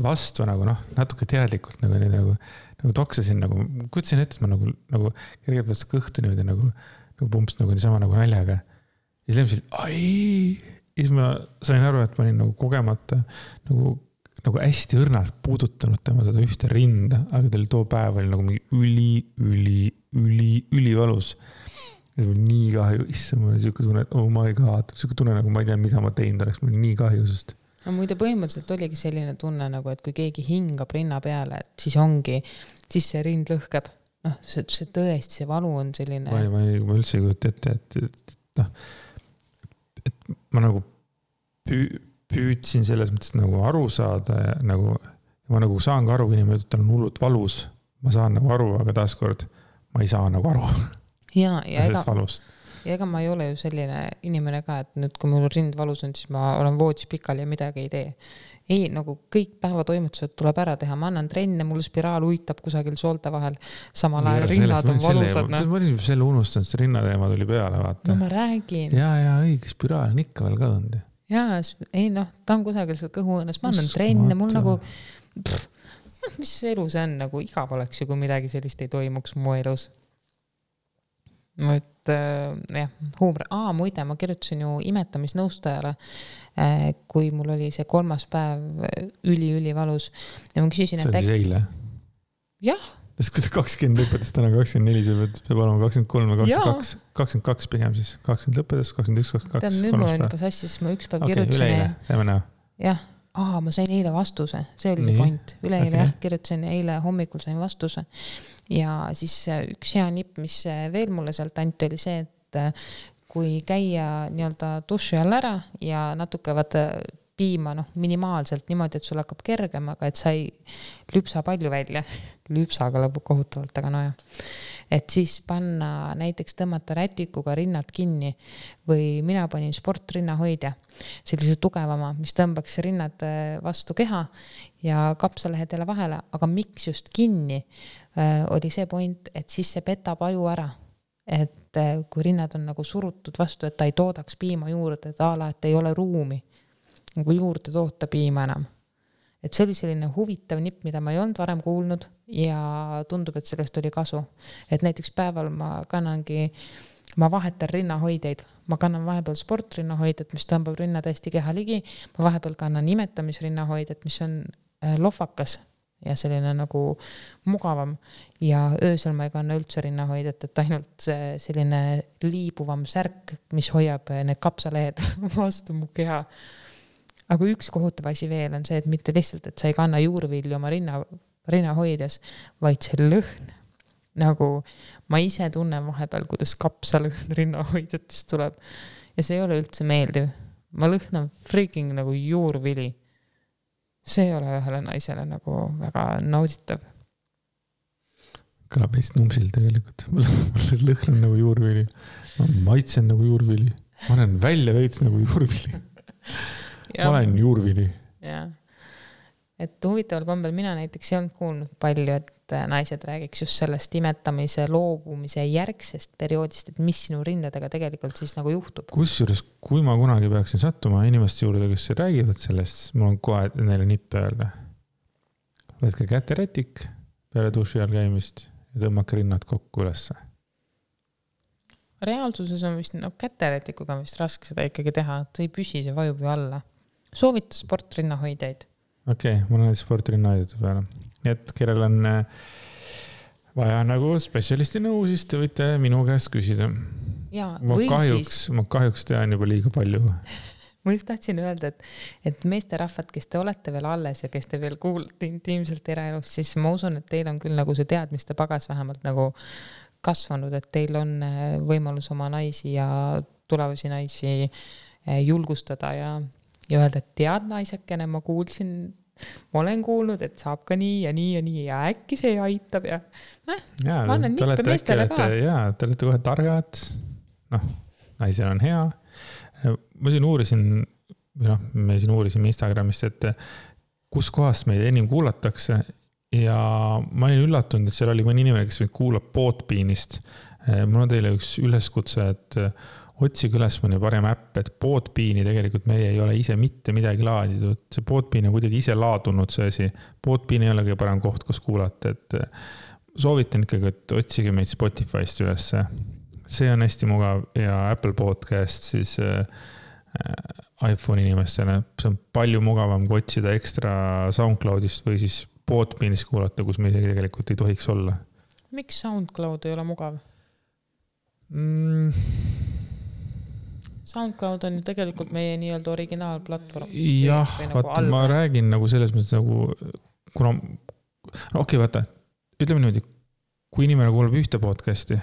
vastu nagu natuke teadlikult nagu toksasin nagu, kutsin ette, et ma nagu kergelt vastu kõhtu niimoodi nagu pumps nagu niisama nagu naljaga. Ja siis Lempsil, ja siis ma sain aru, et ma olin nagu kogemata nagu hästi õrnalt puudutanud tema seda ühte rinda, aga teil too päev oli nagu mingi ülivalus. Ja see oli nii kahju, mul oli siuke tunne, et oh my god, siuke tunne nagu ma ei tea, mida ma teinud oleks, mul oli nii kahju sest. No muide põhimõtteliselt oligi selline tunne nagu, et kui keegi hingab rinna peale, et siis see rind lõhkeb. See tõesti, see valu on selline... Ma üldse ei kujuta ette, et ma nagu püüdsin selles mõttes nagu aru saada ja nagu, ma nagu saan ka aru, kui inimene ütleb, on hullult valus. Ma saan nagu aru, aga taaskord ma ei saa nagu aru. Ja sellest valust. ja ega ma ei ole ju selline inimene ka, et nüüd kui mul rind valus on, siis ma olen voodis pikal ja midagi ei tee. Ei, nagu kõik päevatoimetused tuleb ära teha, ma annan trenne, mul spiraal uitab kusagil soolte vahel, samal ajal rinnad on valusad. Ma olin selle unustanud, see rinnateema tuli peale, vaata. No ma räägin. Ja õige, spiraal on ikka veel kadunud. Jaa, ei ta on kusagil seal kõhuõõnes, ma annan trenne, mul nagu, mis elu see on, nagu igav oleks ju, kui midagi sellist ei toimuks mu elus. Et huumor. Muide, ma kirjutasin ju imetamisnõustajale, kui mul oli see 3. päev üli valus. Ja ma küsisin, et see eile? Jah. Sest kui ta 20 lõpetas, täna 24, see peab olema 23 või 22. 22 pigem siis. 20 lõpetas, 21, 22. Tead, nüüd mul on juba sassis, siis ma üks päev kirjutasin. Üleeile, teeme näha. Jah. Ma sain eile vastuse. See oli see point. Üleeile kirjutasin, eile hommikul sain vastuse. Ja siis üks hea nipp, mis veel mulle sealt anti, oli see, et kui käia nii-öelda duši all ära ja natuke piima minimaalselt niimoodi, et sul hakkab kergem, aga et sa ei lüpsa palju välja. Lüpsaga lõbu kohutavalt, aga no jah. Et siis panna, näiteks tõmmata rätikuga rinnad kinni või mina panin sportrinnahoidja, sellise tugevama, mis tõmbaks rinnad vastu keha ja kapsalehedele vahele, aga miks just kinni oli see point, et siis see petab aju ära. Et kui rinnad on nagu surutud vastu, et ta ei toodaks piima juurde, et ei ole ruumi nagu juurde toota piima enam. Et see oli selline huvitav nipp, mida ma ei olnud varem kuulnud ja tundub, et sellest oli kasu. Et näiteks päeval ma vahetan rinnahoideid. Ma kannan vahepeal sportrinnahoidet, mis tõmbab rinnad hästi keha ligi. Ma vahepeal kannan imetamisrinnahoidet, mis on lohvakas ja selline nagu mugavam. Ja öösel ma ei kanna üldse rinnahoidet, et ainult selline liibuvam särk, mis hoiab need kapsalehed vastu mu keha. Aga üks kohutav asi veel on see, et mitte lihtsalt, et sa ei kanna juurvilju oma rinnahoides, vaid see lõhn. Nagu ma ise tunnen vahepeal, kuidas kapsalõhn rinnahoidjatest tuleb. Ja see ei ole üldse meeldiv. Ma lõhnan freaking nagu juurvili. See ei ole ühele naisele nagu väga nauditav. Kõlab veits numsil tegelikult. Mul lõhnan nagu juurvili. Ma maitsen nagu juurvili. Ma olen välja veits nagu juurvili. Ma olen juurvili. Ja. Et huvitaval kombel mina näiteks ei olnud kuulnud palju, et naised räägiks just sellest imetamise, loobumise järgsest perioodist, et mis sinu rindadega tegelikult siis nagu juhtub. Kusjuures, kui ma kunagi peaksin sattuma inimeste juurde, kes räägivad sellest, mul on kohe neile nippe öelda. Võtke käterätik peale duši all käimist ja tõmmake rinnad kokku ülesse. Reaalsuses on vist, käterätikuga on vist raske seda ikkagi teha, et see ei püsi, see vajub ju alla. Soovita sportrinnahoideid. Okei, mul on sportrinnahoidjate peale. Nii et kellel on vaja nagu spetsialisti nõu, siis te võite minu käest küsida. Ja, ma kahjuks tean juba liiga palju. Ma just tahtsin öelda, et meesterahvad, kes te olete veel alles ja kes te veel kuulate intiimselt eraelus, siis ma usun, et teil on küll nagu see teadmiste pagas vähemalt nagu kasvanud, et teil on võimalus oma naisi ja tulevasi naisi julgustada ja öelda, et tead naisakene, ma olen kuulnud, et saab ka nii ja nii ja nii ja äkki see aitab ja ma annan nippe meestele ka. Te olete kohe targad, naisel on hea. Ma siin uurisin, me siin uurisime Instagramist, et kus kohast meid enim kuulatakse ja ma olin üllatunud, et seal oli mõni inimene, kes meid kuulab Podbeanist. Mul on teile üks üleskutse, et otsige üles mõni parem äpp, et Podbeani tegelikult meie ei ole ise mitte midagi laaditud. See Podbean on kuidagi ise laadunud see asi. Podbean ei ole kõige parem koht, kus kuulata. Et soovitan ikkagi, et otsige meid Spotify'st üles. See on hästi mugav ja Apple Podcast siis iPhone inimestele. See on palju mugavam kui otsida ekstra SoundCloudist või siis Podbeanist kuulata, kus me isegi tegelikult ei tohiks olla. Miks SoundCloud ei ole mugav? SoundCloud on ju tegelikult meie nii-öelda originaalplatvorm. Jah, vaata, ma räägin nagu selles mõttes nagu, kuna, vaata, ütleme niimoodi, kui inimene kuulab ühte podcasti,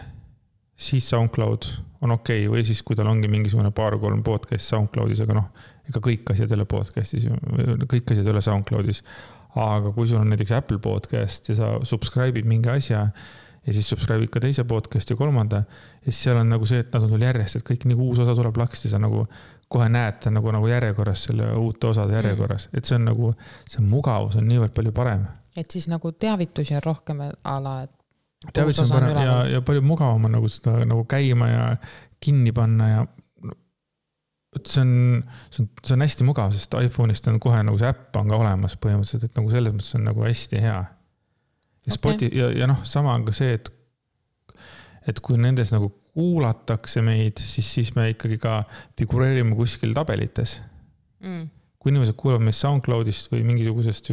siis SoundCloud on okei, või siis kui tal ongi mingisugune 2-3 podcast SoundCloudis, aga ega kõik asjad ei ole podcastis, kõik asjad ei ole SoundCloudis. Aga kui sul on näiteks Apple Podcast ja sa subscribe'id mingi asja ja siis subscribe'id ka teise podcasti ja kolmanda ja siis seal on nagu see, et nad on sul järjest, et kõik nagu uus osa tuleb laksti, sa nagu kohe näed ta nagu järjekorras selle uute osade järjekorras, et see on nagu, see mugavus on niivõrd palju parem. Et siis nagu teavitusi on rohkem ala, et teavitus on parem ja palju mugavam on nagu seda nagu käima ja kinni panna ja see on hästi mugav, sest iPhone'ist on kohe nagu see äpp on ka olemas põhimõtteliselt, et nagu selles mõttes on nagu hästi hea. Ja sama on ka see, et kui nendes nagu kuulatakse meid, siis me ikkagi ka figureerime kuskil tabelites. Kui inimesed kuulavad meid SoundCloudist või mingisugusest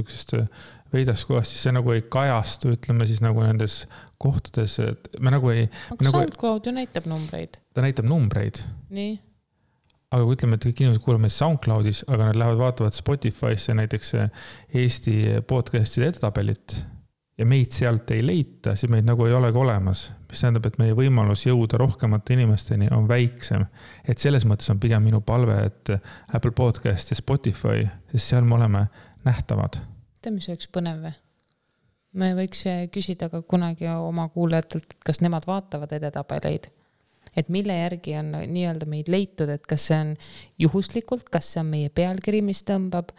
veidast kohast, siis see nagu ei kajastu, ütleme siis nagu nendes kohtades, et me nagu ei... Aga SoundCloud ju näitab numbreid. Ta näitab numbreid. Nii. Aga kui ütleme, et kõik inimesed kuulavad meid SoundCloudis, aga nad lähevad vaatavad Spotify'sse näiteks Eesti podcast'ide edetabelit ja meid sealt ei leita, siis meid nagu ei olegi olemas. Mis tähendab, et meie võimalus jõuda rohkemate inimesteni on väiksem. Et selles mõttes on pigem minu palve, et Apple Podcast ja Spotify, sest seal me oleme nähtavad. Mis oleks põnev või? Me võiks küsida ka kunagi oma kuulajatelt, kas nemad vaatavad edetabeleid. Et mille järgi on nii-öelda meid leitud, et kas see on juhuslikult, kas see on meie pealkiri, mis tõmbab,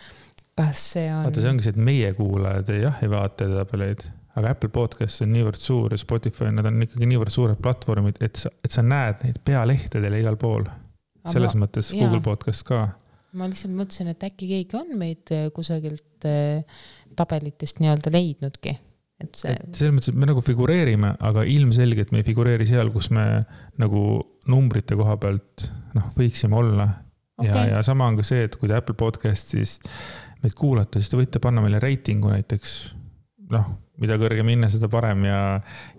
kas see on... Vaata, see ongi see, et meie kuulajad ei vaata edetabeleid, aga Apple Podcast on niivõrd suur ja Spotify, nad on ikkagi niivõrd suured platvormid, et sa näed neid pealehtedele igal pool. Selles mõttes Google Podcast ka. Ma lihtsalt mõtlesin, et äkki keegi on meid kusagilt tabelitest nii-öelda leidnudki. Selles mõttes, et me nagu figureerime, aga ilmselgelt me ei figureeri seal, kus me nagu numbrite koha pealt võiksime olla. Okay. Ja sama on ka see, et kui te Apple Podcastis meid kuulate, siis te võite panna meile reitingu näiteks, mida kõrgem hinne, seda parem ja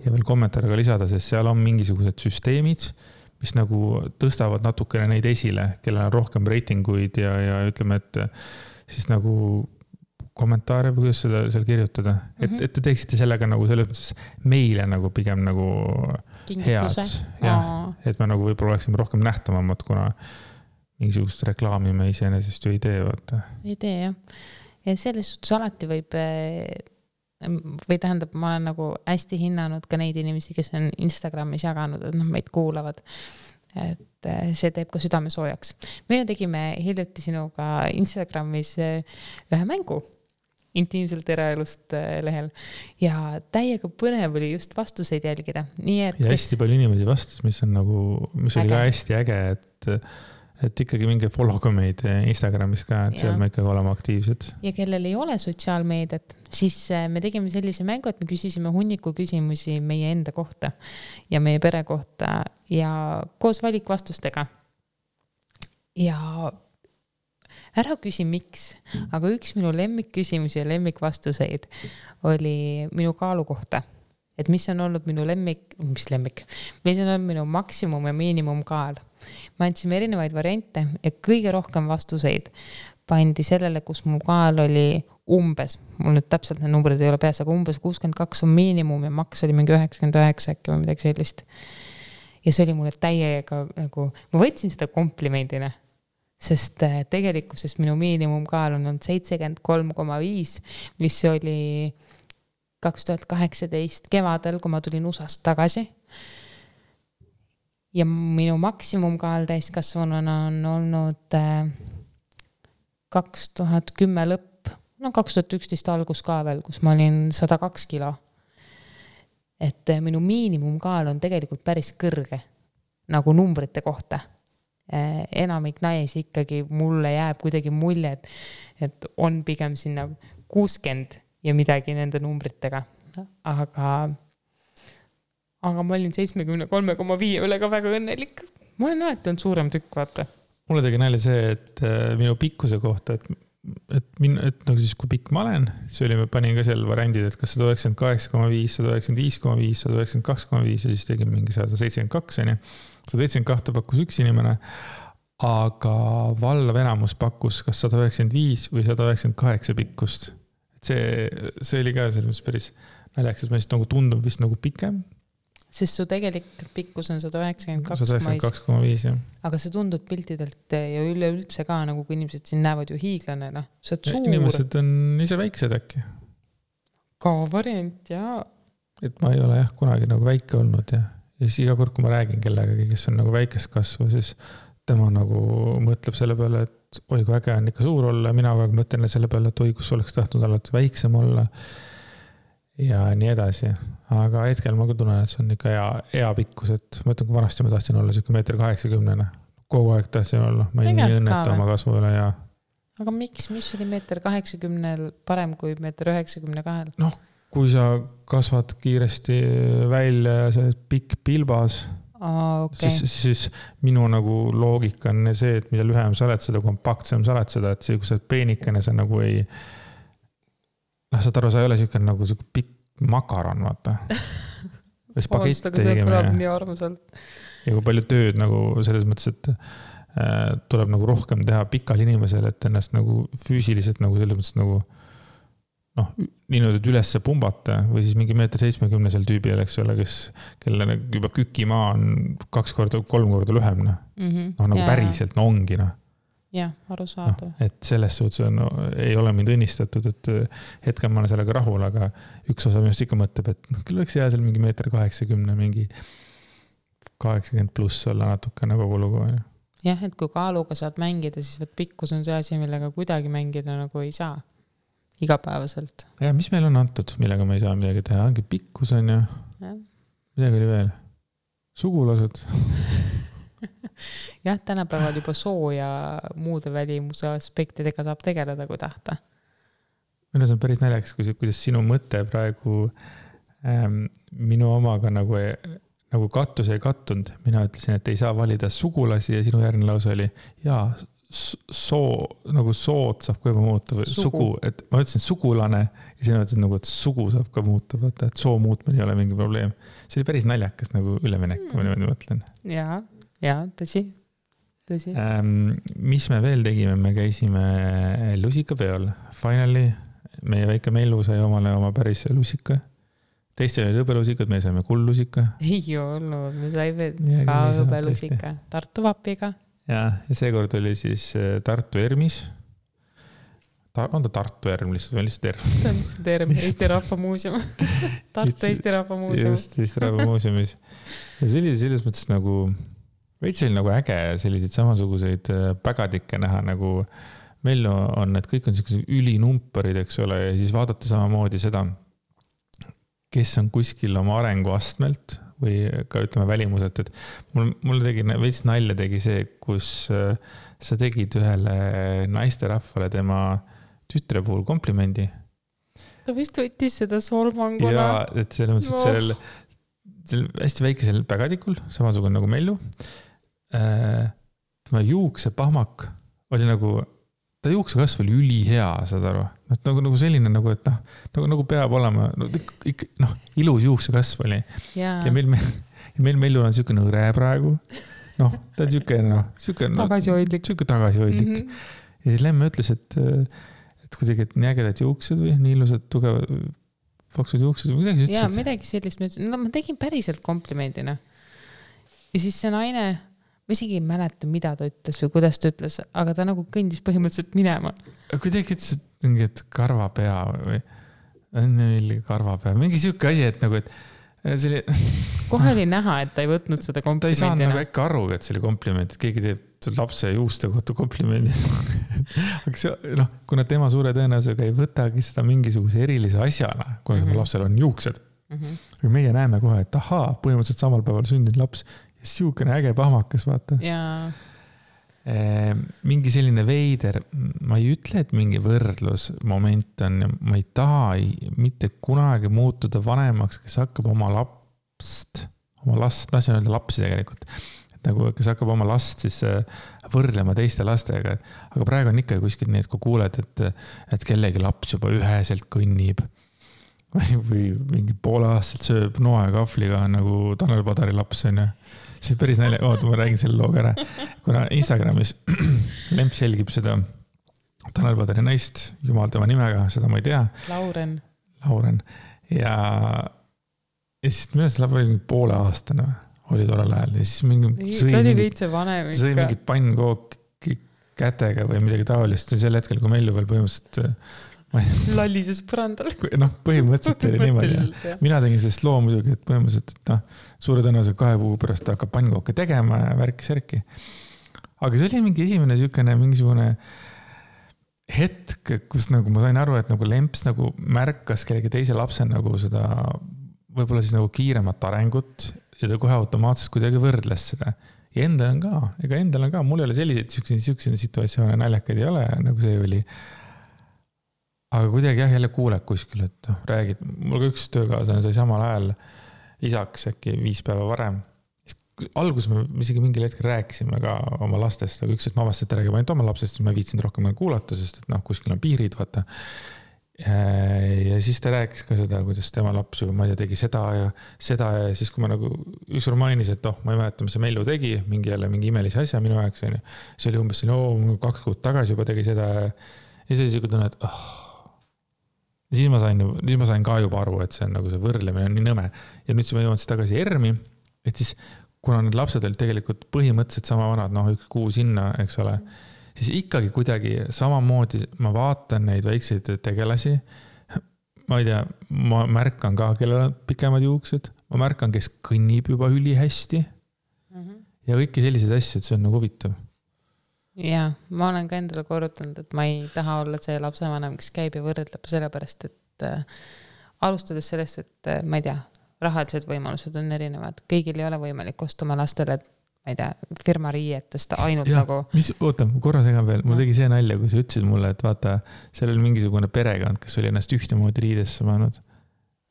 veel kommentaariga lisada, sest seal on mingisugused süsteemid, mis nagu tõstavad natukene neid esile, kellel on rohkem reitinguid ja ütleme, et siis nagu kommentaare või kuidas seda seal kirjutada. Et te teeksite sellega nagu selles mõttes meile nagu pigem nagu Kingituse. head. Et me nagu võib-olla oleksime rohkem nähtavamad, kuna mingisugust reklaami me iseenesest ju ei tee, vaata. Ei tee, jah. Ja selles suhtes alati võib, või tähendab, ma olen nagu hästi hinnanud ka neid inimesi, kes on Instagramis jaganud, et meid kuulavad. Et see teeb ka südame soojaks. Me tegime hiljuti sinuga Instagramis ühe mängu intiimselt eraelust lehel ja täiega põnev oli just vastuseid jälgida. Nii et ja hästi palju inimesi vastus, mis oli ka hästi äge, et ikkagi mingi follow ka meid Instagramis ka, et seal me ikkagi oleme aktiivsed. Ja kellel ei ole sotsiaalmeediat, siis me tegime sellise mängu, et me küsisime hunniku küsimusi meie enda kohta ja meie pere kohta ja koos valikvastustega. Ja ära küsi miks, aga üks minu lemmikküsimusi ja lemmikvastuseid oli minu kaalu kohta. Et mis on olnud minu mis on olnud minu maksimum ja miinimumkaal. Ma andsime erinevaid variante ja kõige rohkem vastuseid pandi sellele, kus mu kaal oli umbes, mul nüüd täpselt need numbrid ei ole peas, aga umbes 62 on miinimum ja maks oli mingi 99 äkki või midagi sellist. Ja see oli mulle täiega nagu, ma võtsin seda komplimendina, sest tegelikkuses minu miinimumkaal on olnud 73,5, mis oli 2018 kevadel, kui ma tulin USAst tagasi. Ja minu maksimumkaal täiskasvanuna on olnud 2010 lõpp, 2011 algus ka veel, kus ma olin 102 kilo. Et minu miinimumkaal on tegelikult päris kõrge, nagu numbrite kohta. Enamik naisi ikkagi mulle jääb kuidagi mulje, et on pigem sinna 60 ja midagi nende numbritega. Aga ma olin 73,5 üle ka väga õnnelik. Ma olen alati olnud suurem tükk, vaata. Mulle tegi nalja see, et minu pikkuse kohta, et nagu siis kui pikk ma olen, see oli, ma panin ka seal variandid, et kas 198,5, 195,5, 192,5 ja siis tegin mingi 172, 172 pakkus üks inimene, aga vallav enamus pakkus kas 195 või 198 pikkust. See oli ka selles mõttes päris naljaks, et ma nagu tundub vist nagu pikem. Sest su tegelik pikkus on 192,5, jah. Aga see tundub piltidelt ja üleüldse ka, nagu kui inimesed siin näevad ju hiiglane, Sa oled suur. Inimesed on ise väiksed äkki. Ka variant, jaa. et ma ei ole jah kunagi nagu väike olnud ja siis iga kord, kui ma räägin kellegagi, kes on nagu väikest kasvu, siis tema nagu mõtleb selle peale, et oi, kui äge on ikka suur olla, mina kogu aeg mõtlen selle peale, et oi, kus oleks tahtnud alati väiksem olla ja nii edasi. Aga hetkel ma küll tunnen, et see on ikka hea pikkus, et ma ütlen, kui vanasti ma tahtsin olla siuke 1,80 m. Kogu aeg tahtsin olla, ma ei nii õnneta oma kasvu üle ja... Aga mis oli 1,80 m parem kui 1,92 m? Noh, kui sa kasvad kiiresti välja ja sa oled pikk pilbas, okay. siis minu nagu loogika on see, et mida lühem sa oled, seda kompaktsem sa oled seda, et see, kui sa oled peenikene, sa nagu ei... saad aru, sa ei ole siuke nagu siuke pikk makaron, vaata. Spagett tegime. Nii armsalt. Ja kui palju tööd nagu selles mõttes, et tuleb nagu rohkem teha pikal inimesel, et ennast nagu füüsiliselt nagu selles mõttes nagu noh, niimoodi, et ülesse pumbata või siis mingi 1,70 m seal tüübil, eks ole, kelle juba kükimaa on 2-3 korda lühem, noh. Nagu päriselt, no ongi, noh. Jah, arusaadav. Et selles suhtes ei ole mind õnnistatud, et hetkel ma olen sellega rahul, aga üks osa minust ikka mõtleb, et küll võiks jää seal mingi 1,80 m, mingi 80 pluss olla natukene kogu lugu. Jah, et kui kaaluga saad mängida, siis pikkus on see asi, millega kuidagi mängida nagu ei saa. Igapäevaselt. Ja mis meil on antud, millega me ei saa midagi teha? Ongi pikkus on ju. Midagi oli veel. Sugulased. Jah, tänapäeval juba soo ja muude välimuse aspektidega saab tegeleda, kui tahta. Minu see on päris naljakas, kuidas sinu mõte praegu minu omaga nagu kattus ei kattunud. Mina ütlesin, et ei saa valida sugulasi ja sinu järgne lause oli nagu sood saab ka juba muuta või sugu, et ma ütlesin sugulane ja sina ütlesid nagu, et sugu saab ka muuta, vaata, et soo muutmine ei ole mingi probleem. See oli päris naljakas nagu üleminek, kui ma niimoodi mõtlen. Ja, tõsi. Mis me veel tegime? Me käisime lusikapeol. Finally, meie väike Mellu sai omale oma päris lusika. Teiste olid hõbelusikad, me saime kulllusika. Ei olnud, me saime ka hõbelusika Tartu vapiga. Ja seekord oli siis Tartu Ermis. On ta Tartu Erm lihtsalt või lihtsalt Erm? Ta on lihtsalt Erm, Eesti Rahva Muuseum. Tartu Eesti Rahva Muuseum. Just, Eesti Rahva Muuseumis. Ja see oli selles mõttes nagu, veits oli nagu äge selliseid samasuguseid pägadikke näha, nagu meil on, et kõik on sellised ülinumperid, eks ole, ja siis vaadata samamoodi seda, kes on kuskil oma arenguastmelt või ka ütleme välimuselt, et mul tegi veits nalja tegi see, kus sa tegid ühele naisterahvale tema tütre puhul komplimendi. Ta vist võttis seda solvanguna. Ja, et selles mõttes, et sellel hästi väikesel pägadikul, samasugune nagu Mellu, tema juukse pahmak oli nagu, ta juukse kasv oli ülihea, saad aru. Nagu selline, nagu, et nagu peab olema, ilus juukse kasv oli. Ja meil Mellu on siuke nõre praegu. Ta on siuke tagasihoidlik. Ja siis Lemme ütles, et kuidagi, et nii ägedad juuksed või nii ilusad, tugevad, paksud juuksed või midagi. Ja midagi sellist, ma tegin päriselt komplimendina. Ja siis see naine, ma isegi ei mäleta, mida ta ütles või kuidas ta ütles, aga ta nagu kõndis põhimõtteliselt minema. Kuidagi ütles, et karvapea või karvapea, mingi siuke asi, et nagu, et see oli... Kohe oli näha, et ta ei võtnud seda komplimendina. Ta ei saanud nagu äkki aru, et see oli kompliment, et keegi teeb lapse juuste kohta komplimendid. Aga see, kuna tema suure tõenäosusega ei võtagi seda mingisuguse erilise asjana, kuna lapsel on juuksed. Aga meie näeme kohe, et põhimõtteliselt samal päeval sündinud laps ja siukene äge pahmakas, vaata. Mingi selline veider, ma ei ütle, et mingi võrdlusmoment on, ma ei taha mitte kunagi muutuda vanemaks, kes hakkab oma last, see on öelda lapsi tegelikult, et nagu, kes hakkab oma last siis võrdlema teiste lastega, aga praegu on ikka kuskil nii, et kui kuuled, et kellegi laps juba üheselt kõnnib või mingi poole aastaselt sööb noa ja kahvliga nagu Tanel Padari laps on ja see on päris nalja, ma räägin selle looga ära, kuna Instagramis Lemps jälgib seda Tanel Padari naist, jumal tema nimega, seda ma ei tea. Lauren. Ja siis minu see laps oli mingi poole aastane, oli tollel ajal. Ja siis sõi mingi pannkooki kätega või midagi taolist. Sel hetkel, kui Mellu veel põhimõtteliselt Lallises põrandal. Põhimõtteliselt oli niimoodi. Mina tegin sellest loo muidugi, et põhimõtteliselt, et suure tõenäoliselt 2 kuu pärast hakkab pannkooke tegema ja värki-särki. Aga see oli mingi esimene mingisugune hetk, kus nagu ma sain aru, et nagu Lemps nagu märkas kellegi teise lapse nagu seda võib-olla siis nagu kiiremat arengut ja ta kohe automaatselt kuidagi võrdles seda. Ja endal on ka, mul ei ole selliseid situatsioone naljakaid ei ole, nagu see oli. Aga kuidagi jälle kuuled kuskil, et räägid. Mul ka üks töökaaslane sai samal ajal isaks äkki 5 päeva varem. Alguses me isegi mingil hetkel rääkisime ka oma lastest, aga üks, et ma avastan, et räägime ainult oma lapsest, siis ma viitsin rohkem kuulata, sest et kuskil on piirid, vaata. Ja siis ta rääkis ka seda, kuidas tema laps juba, ma ei tea, tegi seda ja siis kui ma nagu ükskord mainis, et ma ei mäleta, mis see Mellu tegi, mingi imelise asja minu ajaga, see oli umbes 2 kuud tagasi juba tegi seda ja siis oli siuke tunne, et siis ma sain ka juba aru, et see on nagu see võrdlemine on nii nõme ja nüüd siis ma jõuan siis tagasi ERM-i, et siis kuna need lapsed olid tegelikult põhimõtteliselt sama vanad, 1 kuu sinna, eks ole, siis ikkagi kuidagi samamoodi ma vaatan neid väikseid tegelasi. Ma ei tea, ma märkan ka, kellel on pikemad juuksed. Ma märkan, kes kõnnib juba üli hästi. Ja kõiki selliseid asju, et see on nagu huvitav. Ja, ma olen ka endale korrutanud, et ma ei taha olla see lapsevanem, kes käib ja võrdleb sellepärast, et alustades sellest, et ma ei tea, rahalised võimalused on erinevad. Kõigil ei ole võimalik ostuma lastele, ma ei tea, firma riietest ainult ja, nagu... Oota, korra segan veel. Mul tegi see nalja, kui sa ütlesid mulle, et vaata, seal oli mingisugune perekond, kes oli ennast ühtemoodi riidesse pannud.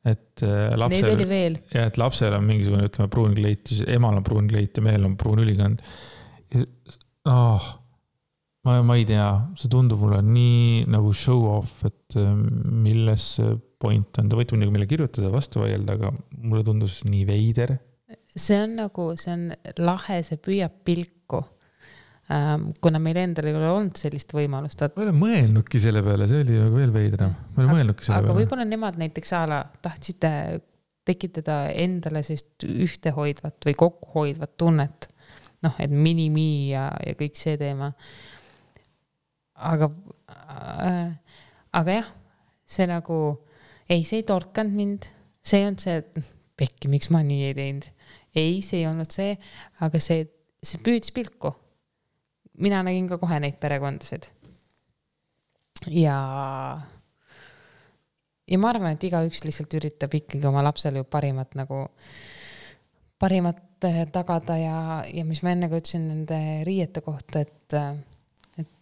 Et lapsel... Neid oli veel. Ja, et lapsel on mingisugune, ütleme, pruun kleit, emal on pruun kleit ja mehel on pruun ülikond. Ma ei tea, see tundub mulle nii nagu show off, et milles point on. Ta võite mille kirjutada vastu vaielda, aga mulle tundus nii veider. See on lahe, see püüab pilku. Kuna meil endal ei ole olnud sellist võimalust. Ma ei ole mõelnudki selle peale, see oli veel veidram. Ma ei ole mõelnudki selle peale. Aga võib-olla nemad näiteks tahtsid tekitada endale sellist ühtehoidvat või kokkuhoidvat tunnet. Et mini-mi ja kõik see teema. Aga jah, see nagu see ei torkanud mind, see on see, et pekki, miks ma nii ei teinud. Ei, see ei olnud see, aga see püüdis pilku. Mina nägin ka kohe neid perekondasid. Ja ma arvan, et igaüks lihtsalt üritab ikkagi oma lapsele ju parimat tagada ja mis ma enne ka ütlesin nende riiete kohta, et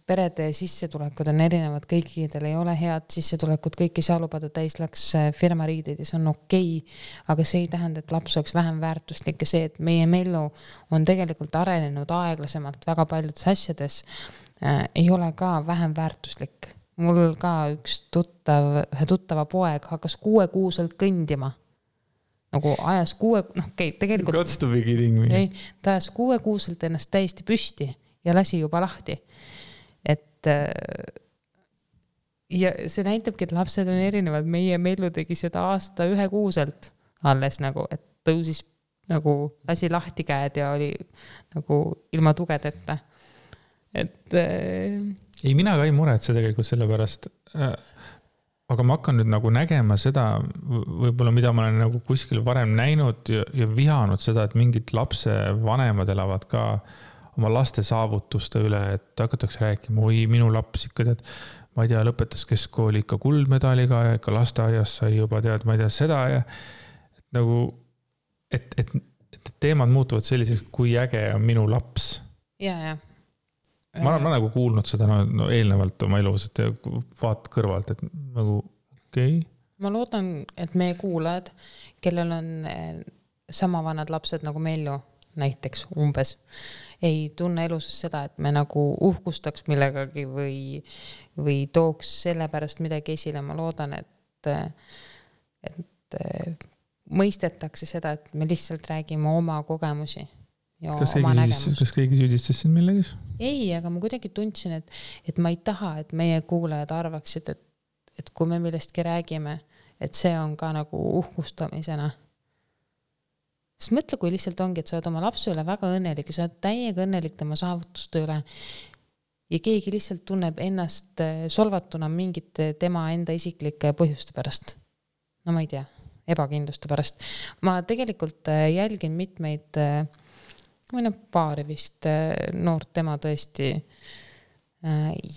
perede sissetulekud on erinevad, kõikidel ei ole head sissetulekut, kõik ei saa lubada täislaks firma riideid ja see on okei, aga see ei tähenda, et laps oleks vähem väärtuslik ja see, et meie Mellu on tegelikult arenenud aeglasemalt väga paljudes asjades, ei ole ka vähem väärtuslik. Mul ka ühe tuttava poeg hakkas 6-kuuselt kõndima. Nagu ajas tegelikult... Gots to be kidding me. Ta ajas 6-kuuselt ennast täiesti püsti ja lasi juba lahti. Et ja see näitabki, et lapsed on erinevad. Meie Mellu tegi seda aasta 1-kuuselt alles et tõusis lasi lahti käed ja oli ilma tugedeta. Et ei, mina ka ei muretse tegelikult selle pärast. Aga ma hakkan nüüd nägema seda, võib-olla mida ma olen kuskil varem näinud ja vihanud seda, et mingid lapse vanemad elavad ka oma laste saavutuste üle, et hakatakse rääkima, minu laps ikka tead, ma ei tea, lõpetas keskkooli ikka kuldmedaliga ja ikka lasteaias sai juba tead, ma ei tea seda ja et teemad muutuvad selliseks, kui äge on minu laps. Ja. Ma olen kuulnud seda eelnevalt oma elus, et vaat kõrvalt, et okei. Ma loodan, et meie kuulajad, kellel on sama vanad lapsed nagu Mellu, näiteks umbes, ei tunne elus seda, et me uhkustaks millegagi või tooks selle pärast midagi esile. Ma loodan, et mõistetakse seda, et me lihtsalt räägime oma kogemusi ja oma nägemust. Kas keegi süüdistas siin millegis? Ei, aga ma kuidagi tundsin, et ma ei taha, et meie kuulajad arvaksid, et kui me millestki räägime, et see on ka uhkustamisena. Sest mõtle, kui lihtsalt ongi, et sa oled oma lapse üle väga õnnelik ja sa oled täiega õnnelik tema saavutuste üle ja keegi lihtsalt tunneb ennast solvatuna mingite tema enda isiklike põhjuste pärast. No ma ei tea, ebakindluste pärast. Ma tegelikult jälgin mitmeid, paari vist noort tema tõesti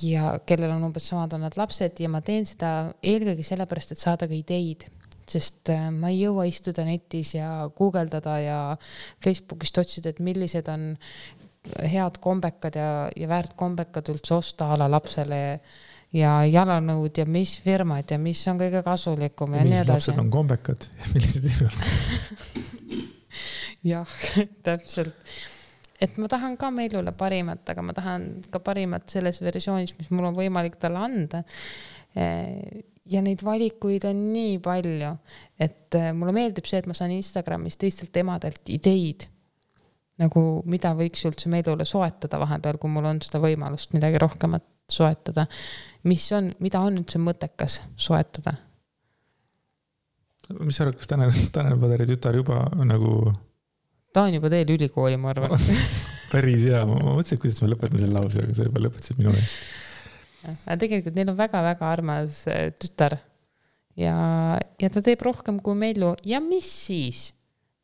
ja kellel on umbes samad on nad lapsed ja ma teen seda eelkõige sellepärast, et saada ka ideid, sest ma ei jõua istuda netis ja guugeldada ja Facebookist otsida, et millised on head kombekad ja väärt kombekad üldse osta ala lapsele ja jalanõud ja mis firmad ja mis on kõige kasulikum ja nii edasi. Millised lapsed on kombekad ja millised ei ole? Jah, täpselt. Et ma tahan ka Meilule parimat, aga ma tahan ka parimat selles versioonis, mis mul on võimalik talle anda. Ja neid valikuid on nii palju, et mulle meeldib see, et ma saan Instagramis teistelt emadelt ideid, nagu mida võiks üldse Meilule soetada vahepeal, kui mul on seda võimalust midagi rohkemat soetada. Mida on üldse mõttekas soetada? Mis sa arvad, kas Tanel Padari tütar juba nagu... Ta on juba teel ülikooli, ma arvan. Päris hea, ma mõtlesin, kuidas ma lõpetan selle lause, aga sa juba lõpetasid minu eest. Aga tegelikult neil on väga-väga armas tütar ja ta teeb rohkem kui Meilu ja mis siis?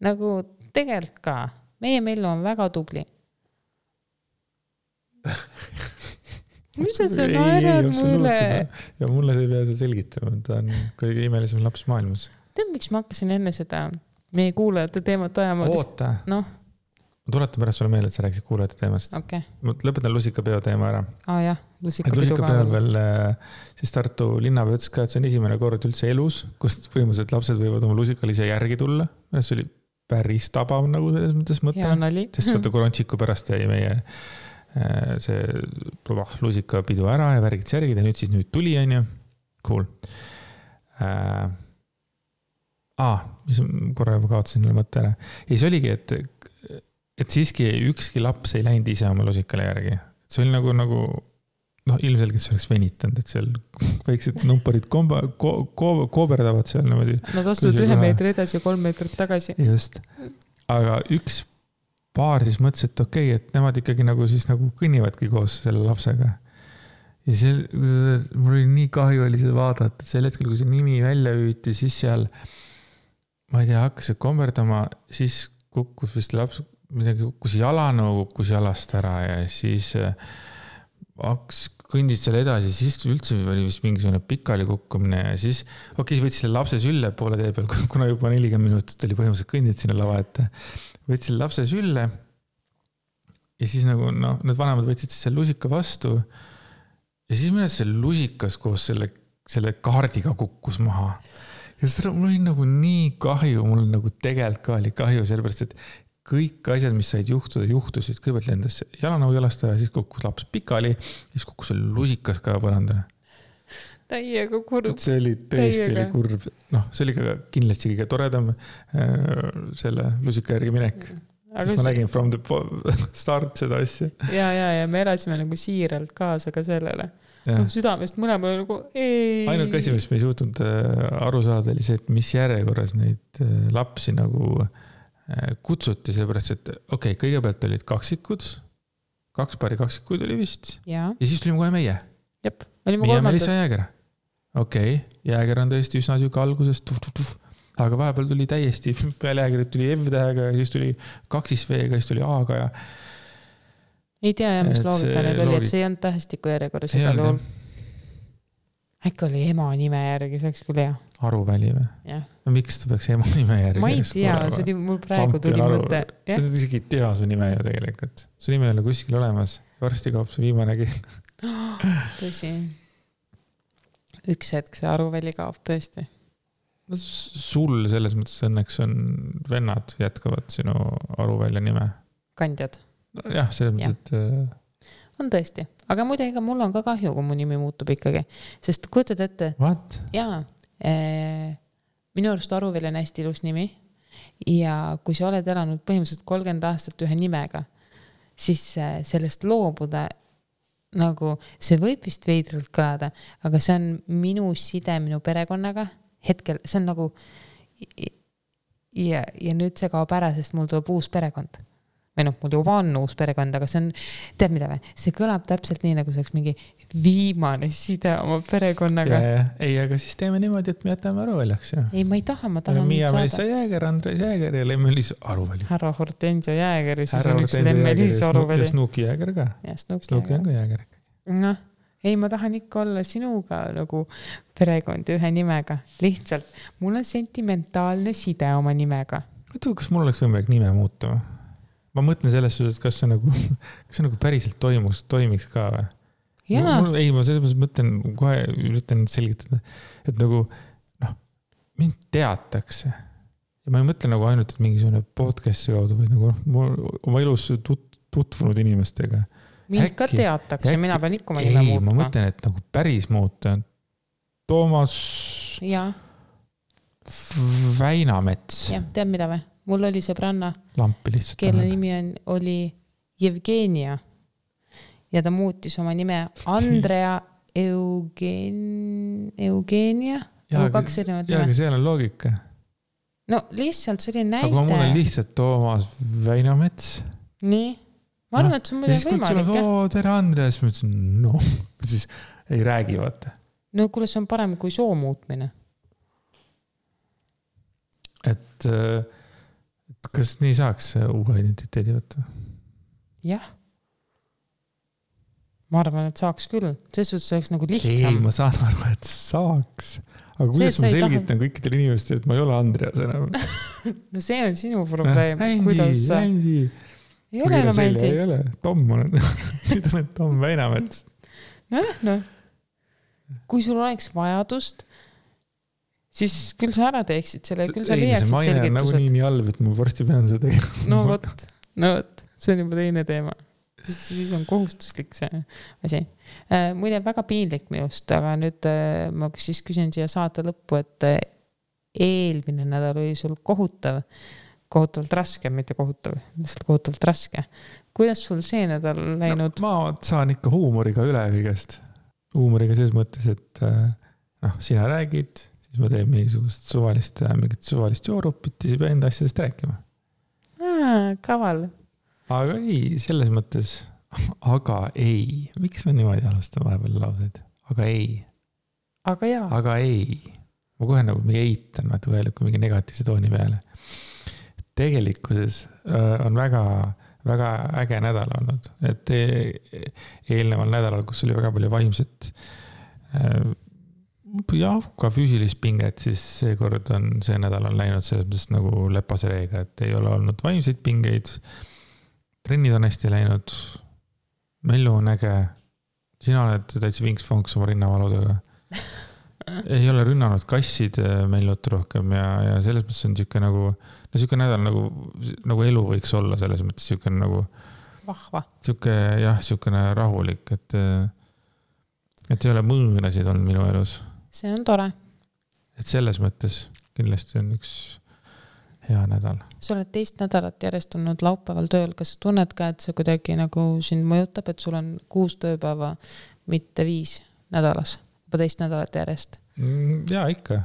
Nagu tegelikult ka. Meie Meilu on väga tubli. Mis sa naerad mulle? Ja mulle see pea selgitama. Ta on kõige imelisem laps maailmas. Tead, miks ma hakkasin enne seda meie kuulajate teemat ajama? Oota. Ma tuletan pärast sulle meelde, et sa rääkisid kuulajate teemast. Okay. Ma lõpetan lusikapeo teema ära. Jah, lusikapeo veel siis Tartu linnapea ütles ka, et see on esimene kord üldse elus, kust põhimõtteliselt lapsed võivad oma lusikal ise järgi tulla. See oli päris tabav nagu selles mõttes mõte. Sest vaata korontsiku pärast jäi meie see lusikapidu ära ja värgid särgid ja nüüd tuli, on ju. Cool. Mis korra juba kaotasin mõtte ära. Ei, see oligi, et siiski ükski laps ei läinud ise oma lusikale järgi. See oli nagu ilmselgelt see oleks venitanud, et seal väiksed numperid kooberdavad seal niimoodi. Nad astuvad 1 meetri edasi ja 3 meetrit tagasi. Just. Aga üks paar siis mõtles, et okei, et nemad ikkagi nagu kõnnivadki koos selle lapsega. Ja mul oli nii kahju oli seda vaadata, et sel hetkel, kui see nimi välja hüüti, siis seal, ma ei tea, hakkas see komberdama, siis kukkus vist laps, midagi kukkus jalanõu, kukkus jalast ära ja siis kõndid seal edasi, siis üldse oli vist mingisugune pikali kukkumine ja siis võttis selle lapse sülle poole tee peal, kuna juba 40 minutit oli põhimõtteliselt kõndid sinna lava ette. Võttis selle lapse sülle ja siis need vanemad võtsid selle lusika vastu ja siis mõnes see lusikas koos selle kaardiga kukkus maha. Ja seda mul oli nii kahju, mul tegelikult ka oli kahju, sellepärast, et kõik asjad, mis said juhtusid, kõigepealt lendas jalanõu jalast ära, siis kukkus laps pikali, siis kukkus selle lusikas ka põrandale. Täiega kurb. See oli tõesti oli kurb. See oli ka kindlasti kõige toredam selle lusika järgi minek. Siis ma nägin from the start seda asja. Ja me elasime siiralt kaasa ka sellele. Südamest mõlemal ei. Ainuke asi, mis me ei suutnud aru saada, oli see, et mis järjekorras neid lapsi kutsuti, sellepärast, et kõigepealt olid kaksikud, 2 paari kaksikuid oli vist. Ja siis tulime kohe meie. Jep, meie Melissa Jääger. Jääger on tõesti üsna süga algusest. Aga vahepeal tuli täiesti, peale Jäägerit tuli F-tähega, siis tuli 2V-ga, siis tuli A-ga ja... Ei tea, mis loogika need oli, et see ei olnud tähestiku järjekorras igal juhul. Äkki oli ema nime järgi, see oleks küll hea. Aruväli või? Jah. Miks ta peaks ema nime järgi? Ma ei tea, see oli mul praegu tuli mõte. Ta isegi ei tea su nime ju tegelikult. Su nime ei ole kuskil olemas. Varsti kaob su viimanegi. Tõsi. Üks hetk see Aruväli kaob tõesti. Sul selles mõttes õnneks on vennad jätkavad sinu Aruvälja nime. Kandjad. Jah, selles mõttes, et... On tõesti. Aga muide, ega mul on ka kahju, kui mu nimi muutub ikkagi. Sest kujutad ette... What? Jaa. Minu arust Aruvälja on hästi ilus nimi. Ja kui sa oled elanud põhimõtteliselt 30 aastat ühe nimega, siis sellest loobuda see võib vist veidralt kõlada, aga see on minu side minu perekonnaga. Hetkel, see on ja nüüd see kaob ära, sest mul tuleb uus perekond. või noh, mul juba on uus perekond, aga see on, tead mida või? See kõlab täpselt nii, nagu see oleks mingi viimane side oma perekonnaga. Ei, aga siis teeme niimoodi, et me jätame Aruväljaks. Ei, ma ei taha, ma tahan Miia Melissa Jääger, Andres Jääger ja Lemmelis Aruväli. Härra Hortensio Jääger ja siis on üks Lemmelis Aruväli. Ja Snuki Jääger ka. Ja Snuki on ka Jääger. Noh, ei, ma tahan ikka olla sinuga nagu perekond ühe nimega. Lihtsalt, mul on sentimentaalne side oma nimega. Kas mul oleks võimalik nime muuta? Ma mõtlen selles suhtes, et kas see nagu päriselt toimiks ka või? Ei, ma selles mõtlen, kohe üritan selgitada, et nagu, mind teatakse. Ja ma ei mõtle nagu ainult, et mingisugune podcasti kaudu, vaid nagu oma elus tutvunud inimestega. Mind ka teatakse, mina pean ikka oma nime muutma. Ei, ma mõtlen, et nagu päris muuta. Toomas Väinamets. Jah, tead mida või? Mul oli sõbranna, Lampi lihtsalt. kelle nimi oli Jevgenia. Ja ta muutis oma nime Andrea Eugenia. Jaa, aga seal on loogika. No lihtsalt see oli näide. Aga mul on lihtsalt Toomas Väinamets. Nii. Ma arvan, et see on muidu võimalik. Tere Andres. Ma ütlesin, siis ei räägi, vaata. No kuule, see on parem kui soo muutmine. Et kas nii saaks uue identiteedi võtta? Jah. Ma arvan, et saaks küll. See oleks nagu lihtsam. Ei, ma saan aru, et saaks. Aga kuidas ma selgitan kõikidele inimestele, et ma ei ole Andreas enam? No see on sinu probleem. Ändi. Ei ole enam Ändi. Ei ole. Tom on. Nüüd olen Tom Väinamets. No. Kui sul oleks vajadust, siis küll sa ära teeksid selle, küll sa leiaksid selgitused. Ei, see maine on nagu nii halb, et ma varsti pean seda tegema. No võt. See on juba teine teema. Siis on kohustuslik see asi. Muide, väga piinlik minust, aga nüüd ma siis küsin siia saate lõppu, et eelmine nädal oli sul kohutavalt raske, mitte kohutav, lihtsalt kohutavalt raske. Kuidas sul see nädal läinud? Ma saan ikka huumoriga üle kõigest. Huumoriga selles mõttes, et sina räägid, siis ma teen mingisugust suvalist joorupit ja siis pean enda asjadest rääkima. Kaval. Aga ei, selles mõttes, aga ei. Miks ma niimoodi alustan vahepeal lauseid? Aga ei. Aga jaa. Aga ei. Ma kohe nagu mingi eitan, kui mingi negatiivse tooni peale. Tegelikkuses on väga, väga äge nädal olnud. Et eelneval nädalal, kus oli väga palju vaimset ka füüsilist pinget, siis seekord on see nädal on läinud selles mõttes nagu lepase reega, et ei ole olnud vaimseid pingeid. Trennid on hästi läinud, Mellu on äge, sina oled täitsa vinks-fonks oma rinnavaludega. Ei ole rünnanud kassid Mellut rohkem ja selles mõttes on siuke nädal nagu elu võiks olla, selles mõttes siuke nagu vahva. Siuke rahulik, et ei ole mõõnasid olnud minu elus. See on tore. Et selles mõttes kindlasti on üks hea nädal. Sa oled 2 nädalat järjest olnud laupäeval tööl. Kas sa tunned ka, et see kuidagi nagu sind mõjutab, et sul on 6 tööpäeva, mitte 5 nädalas, juba 2 nädalat järjest? Jaa, ikka.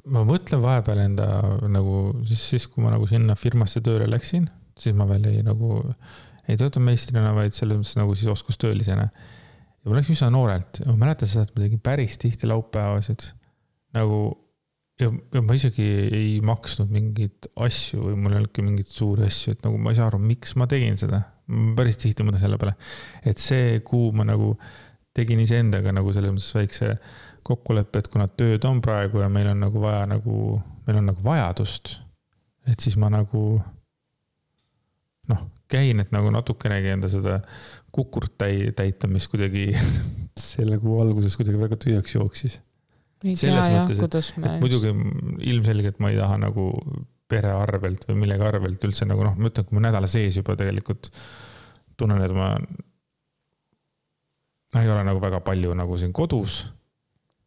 Ma mõtlen vahepeal enda nagu siis kui ma nagu sinna firmasse tööle läksin, siis ma veel ei tööta meistrina, vaid selles mõttes nagu siis oskustöölisena. Ja ma läksin üsna noorelt. Ma mäletan seda, et ma tegin päris tihti laupäevasid nagu ja ma isegi ei maksnud mingeid asju või mul ei olnudki mingeid suuri asju, et nagu ma ei saa aru, miks ma tegin seda. Ma päris tihti mõtlen selle peale, et see kuu ma nagu tegin iseendaga nagu selles mõttes väikse kokkuleppe, et kuna tööd on praegu ja meil on nagu vaja meil on nagu vajadust, et siis ma nagu käin, et nagu natukenegi enda seda kukurt täita, mis kuidagi selle kuu alguses kuidagi väga tühjaks jooksis. Selles mõttes, et muidugi ilmselgelt ma ei taha nagu pere arvelt või millegi arvelt üldse nagu ma ütlen, kui ma nädala sees juba tegelikult tunnen, et ma ei ole nagu väga palju nagu siin kodus.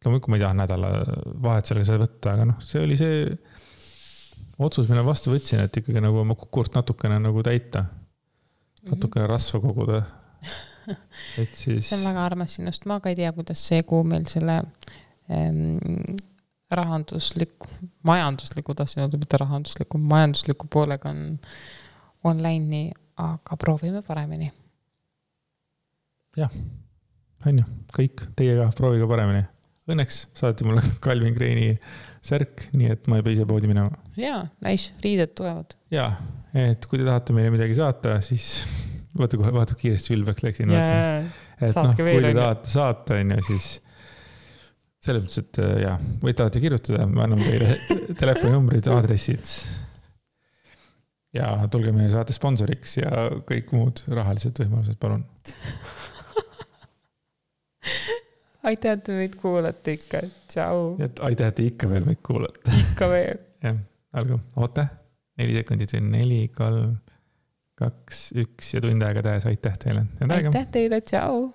Loomulikult ma ei taha nädala vahet sellega seda võtta, aga see oli see otsus, mille vastu võtsin, et ikkagi nagu oma kukurt natukene nagu täita. Natukene rasva koguda. Et siis... See on väga armas sinust. Ma ka ei tea, kuidas see kuu meil selle majandusliku poolega online'i, aga proovime paremini. Jah, on ju, kõik, teiega proovige paremini. Õnneks saati mulle Calvin Kleini särk, nii et ma ei pea ise poodi minema. Jaa, nice, riided tulevad. Jaa, et kui te tahate meile midagi saata, siis vaata kiiresti ülbeks läksin. Et kui te tahate saata, siis selles mõttes, et jah, võite alati kirjutada, ma annan teile telefoninumbrid, aadressid ja tulge meie saate sponsoriks ja kõik muud rahalised võimalused, palun. Aitäh, et meid kuulate ikka. Tšau. Aitäh, et ikka veel meid kuulate. Ikka veel. Jah, algu. Oota. 4 sekundit, 4, 3, 2, 1 ja tund aega tähes. Aitäh teile. Aitäh teile. Tšau.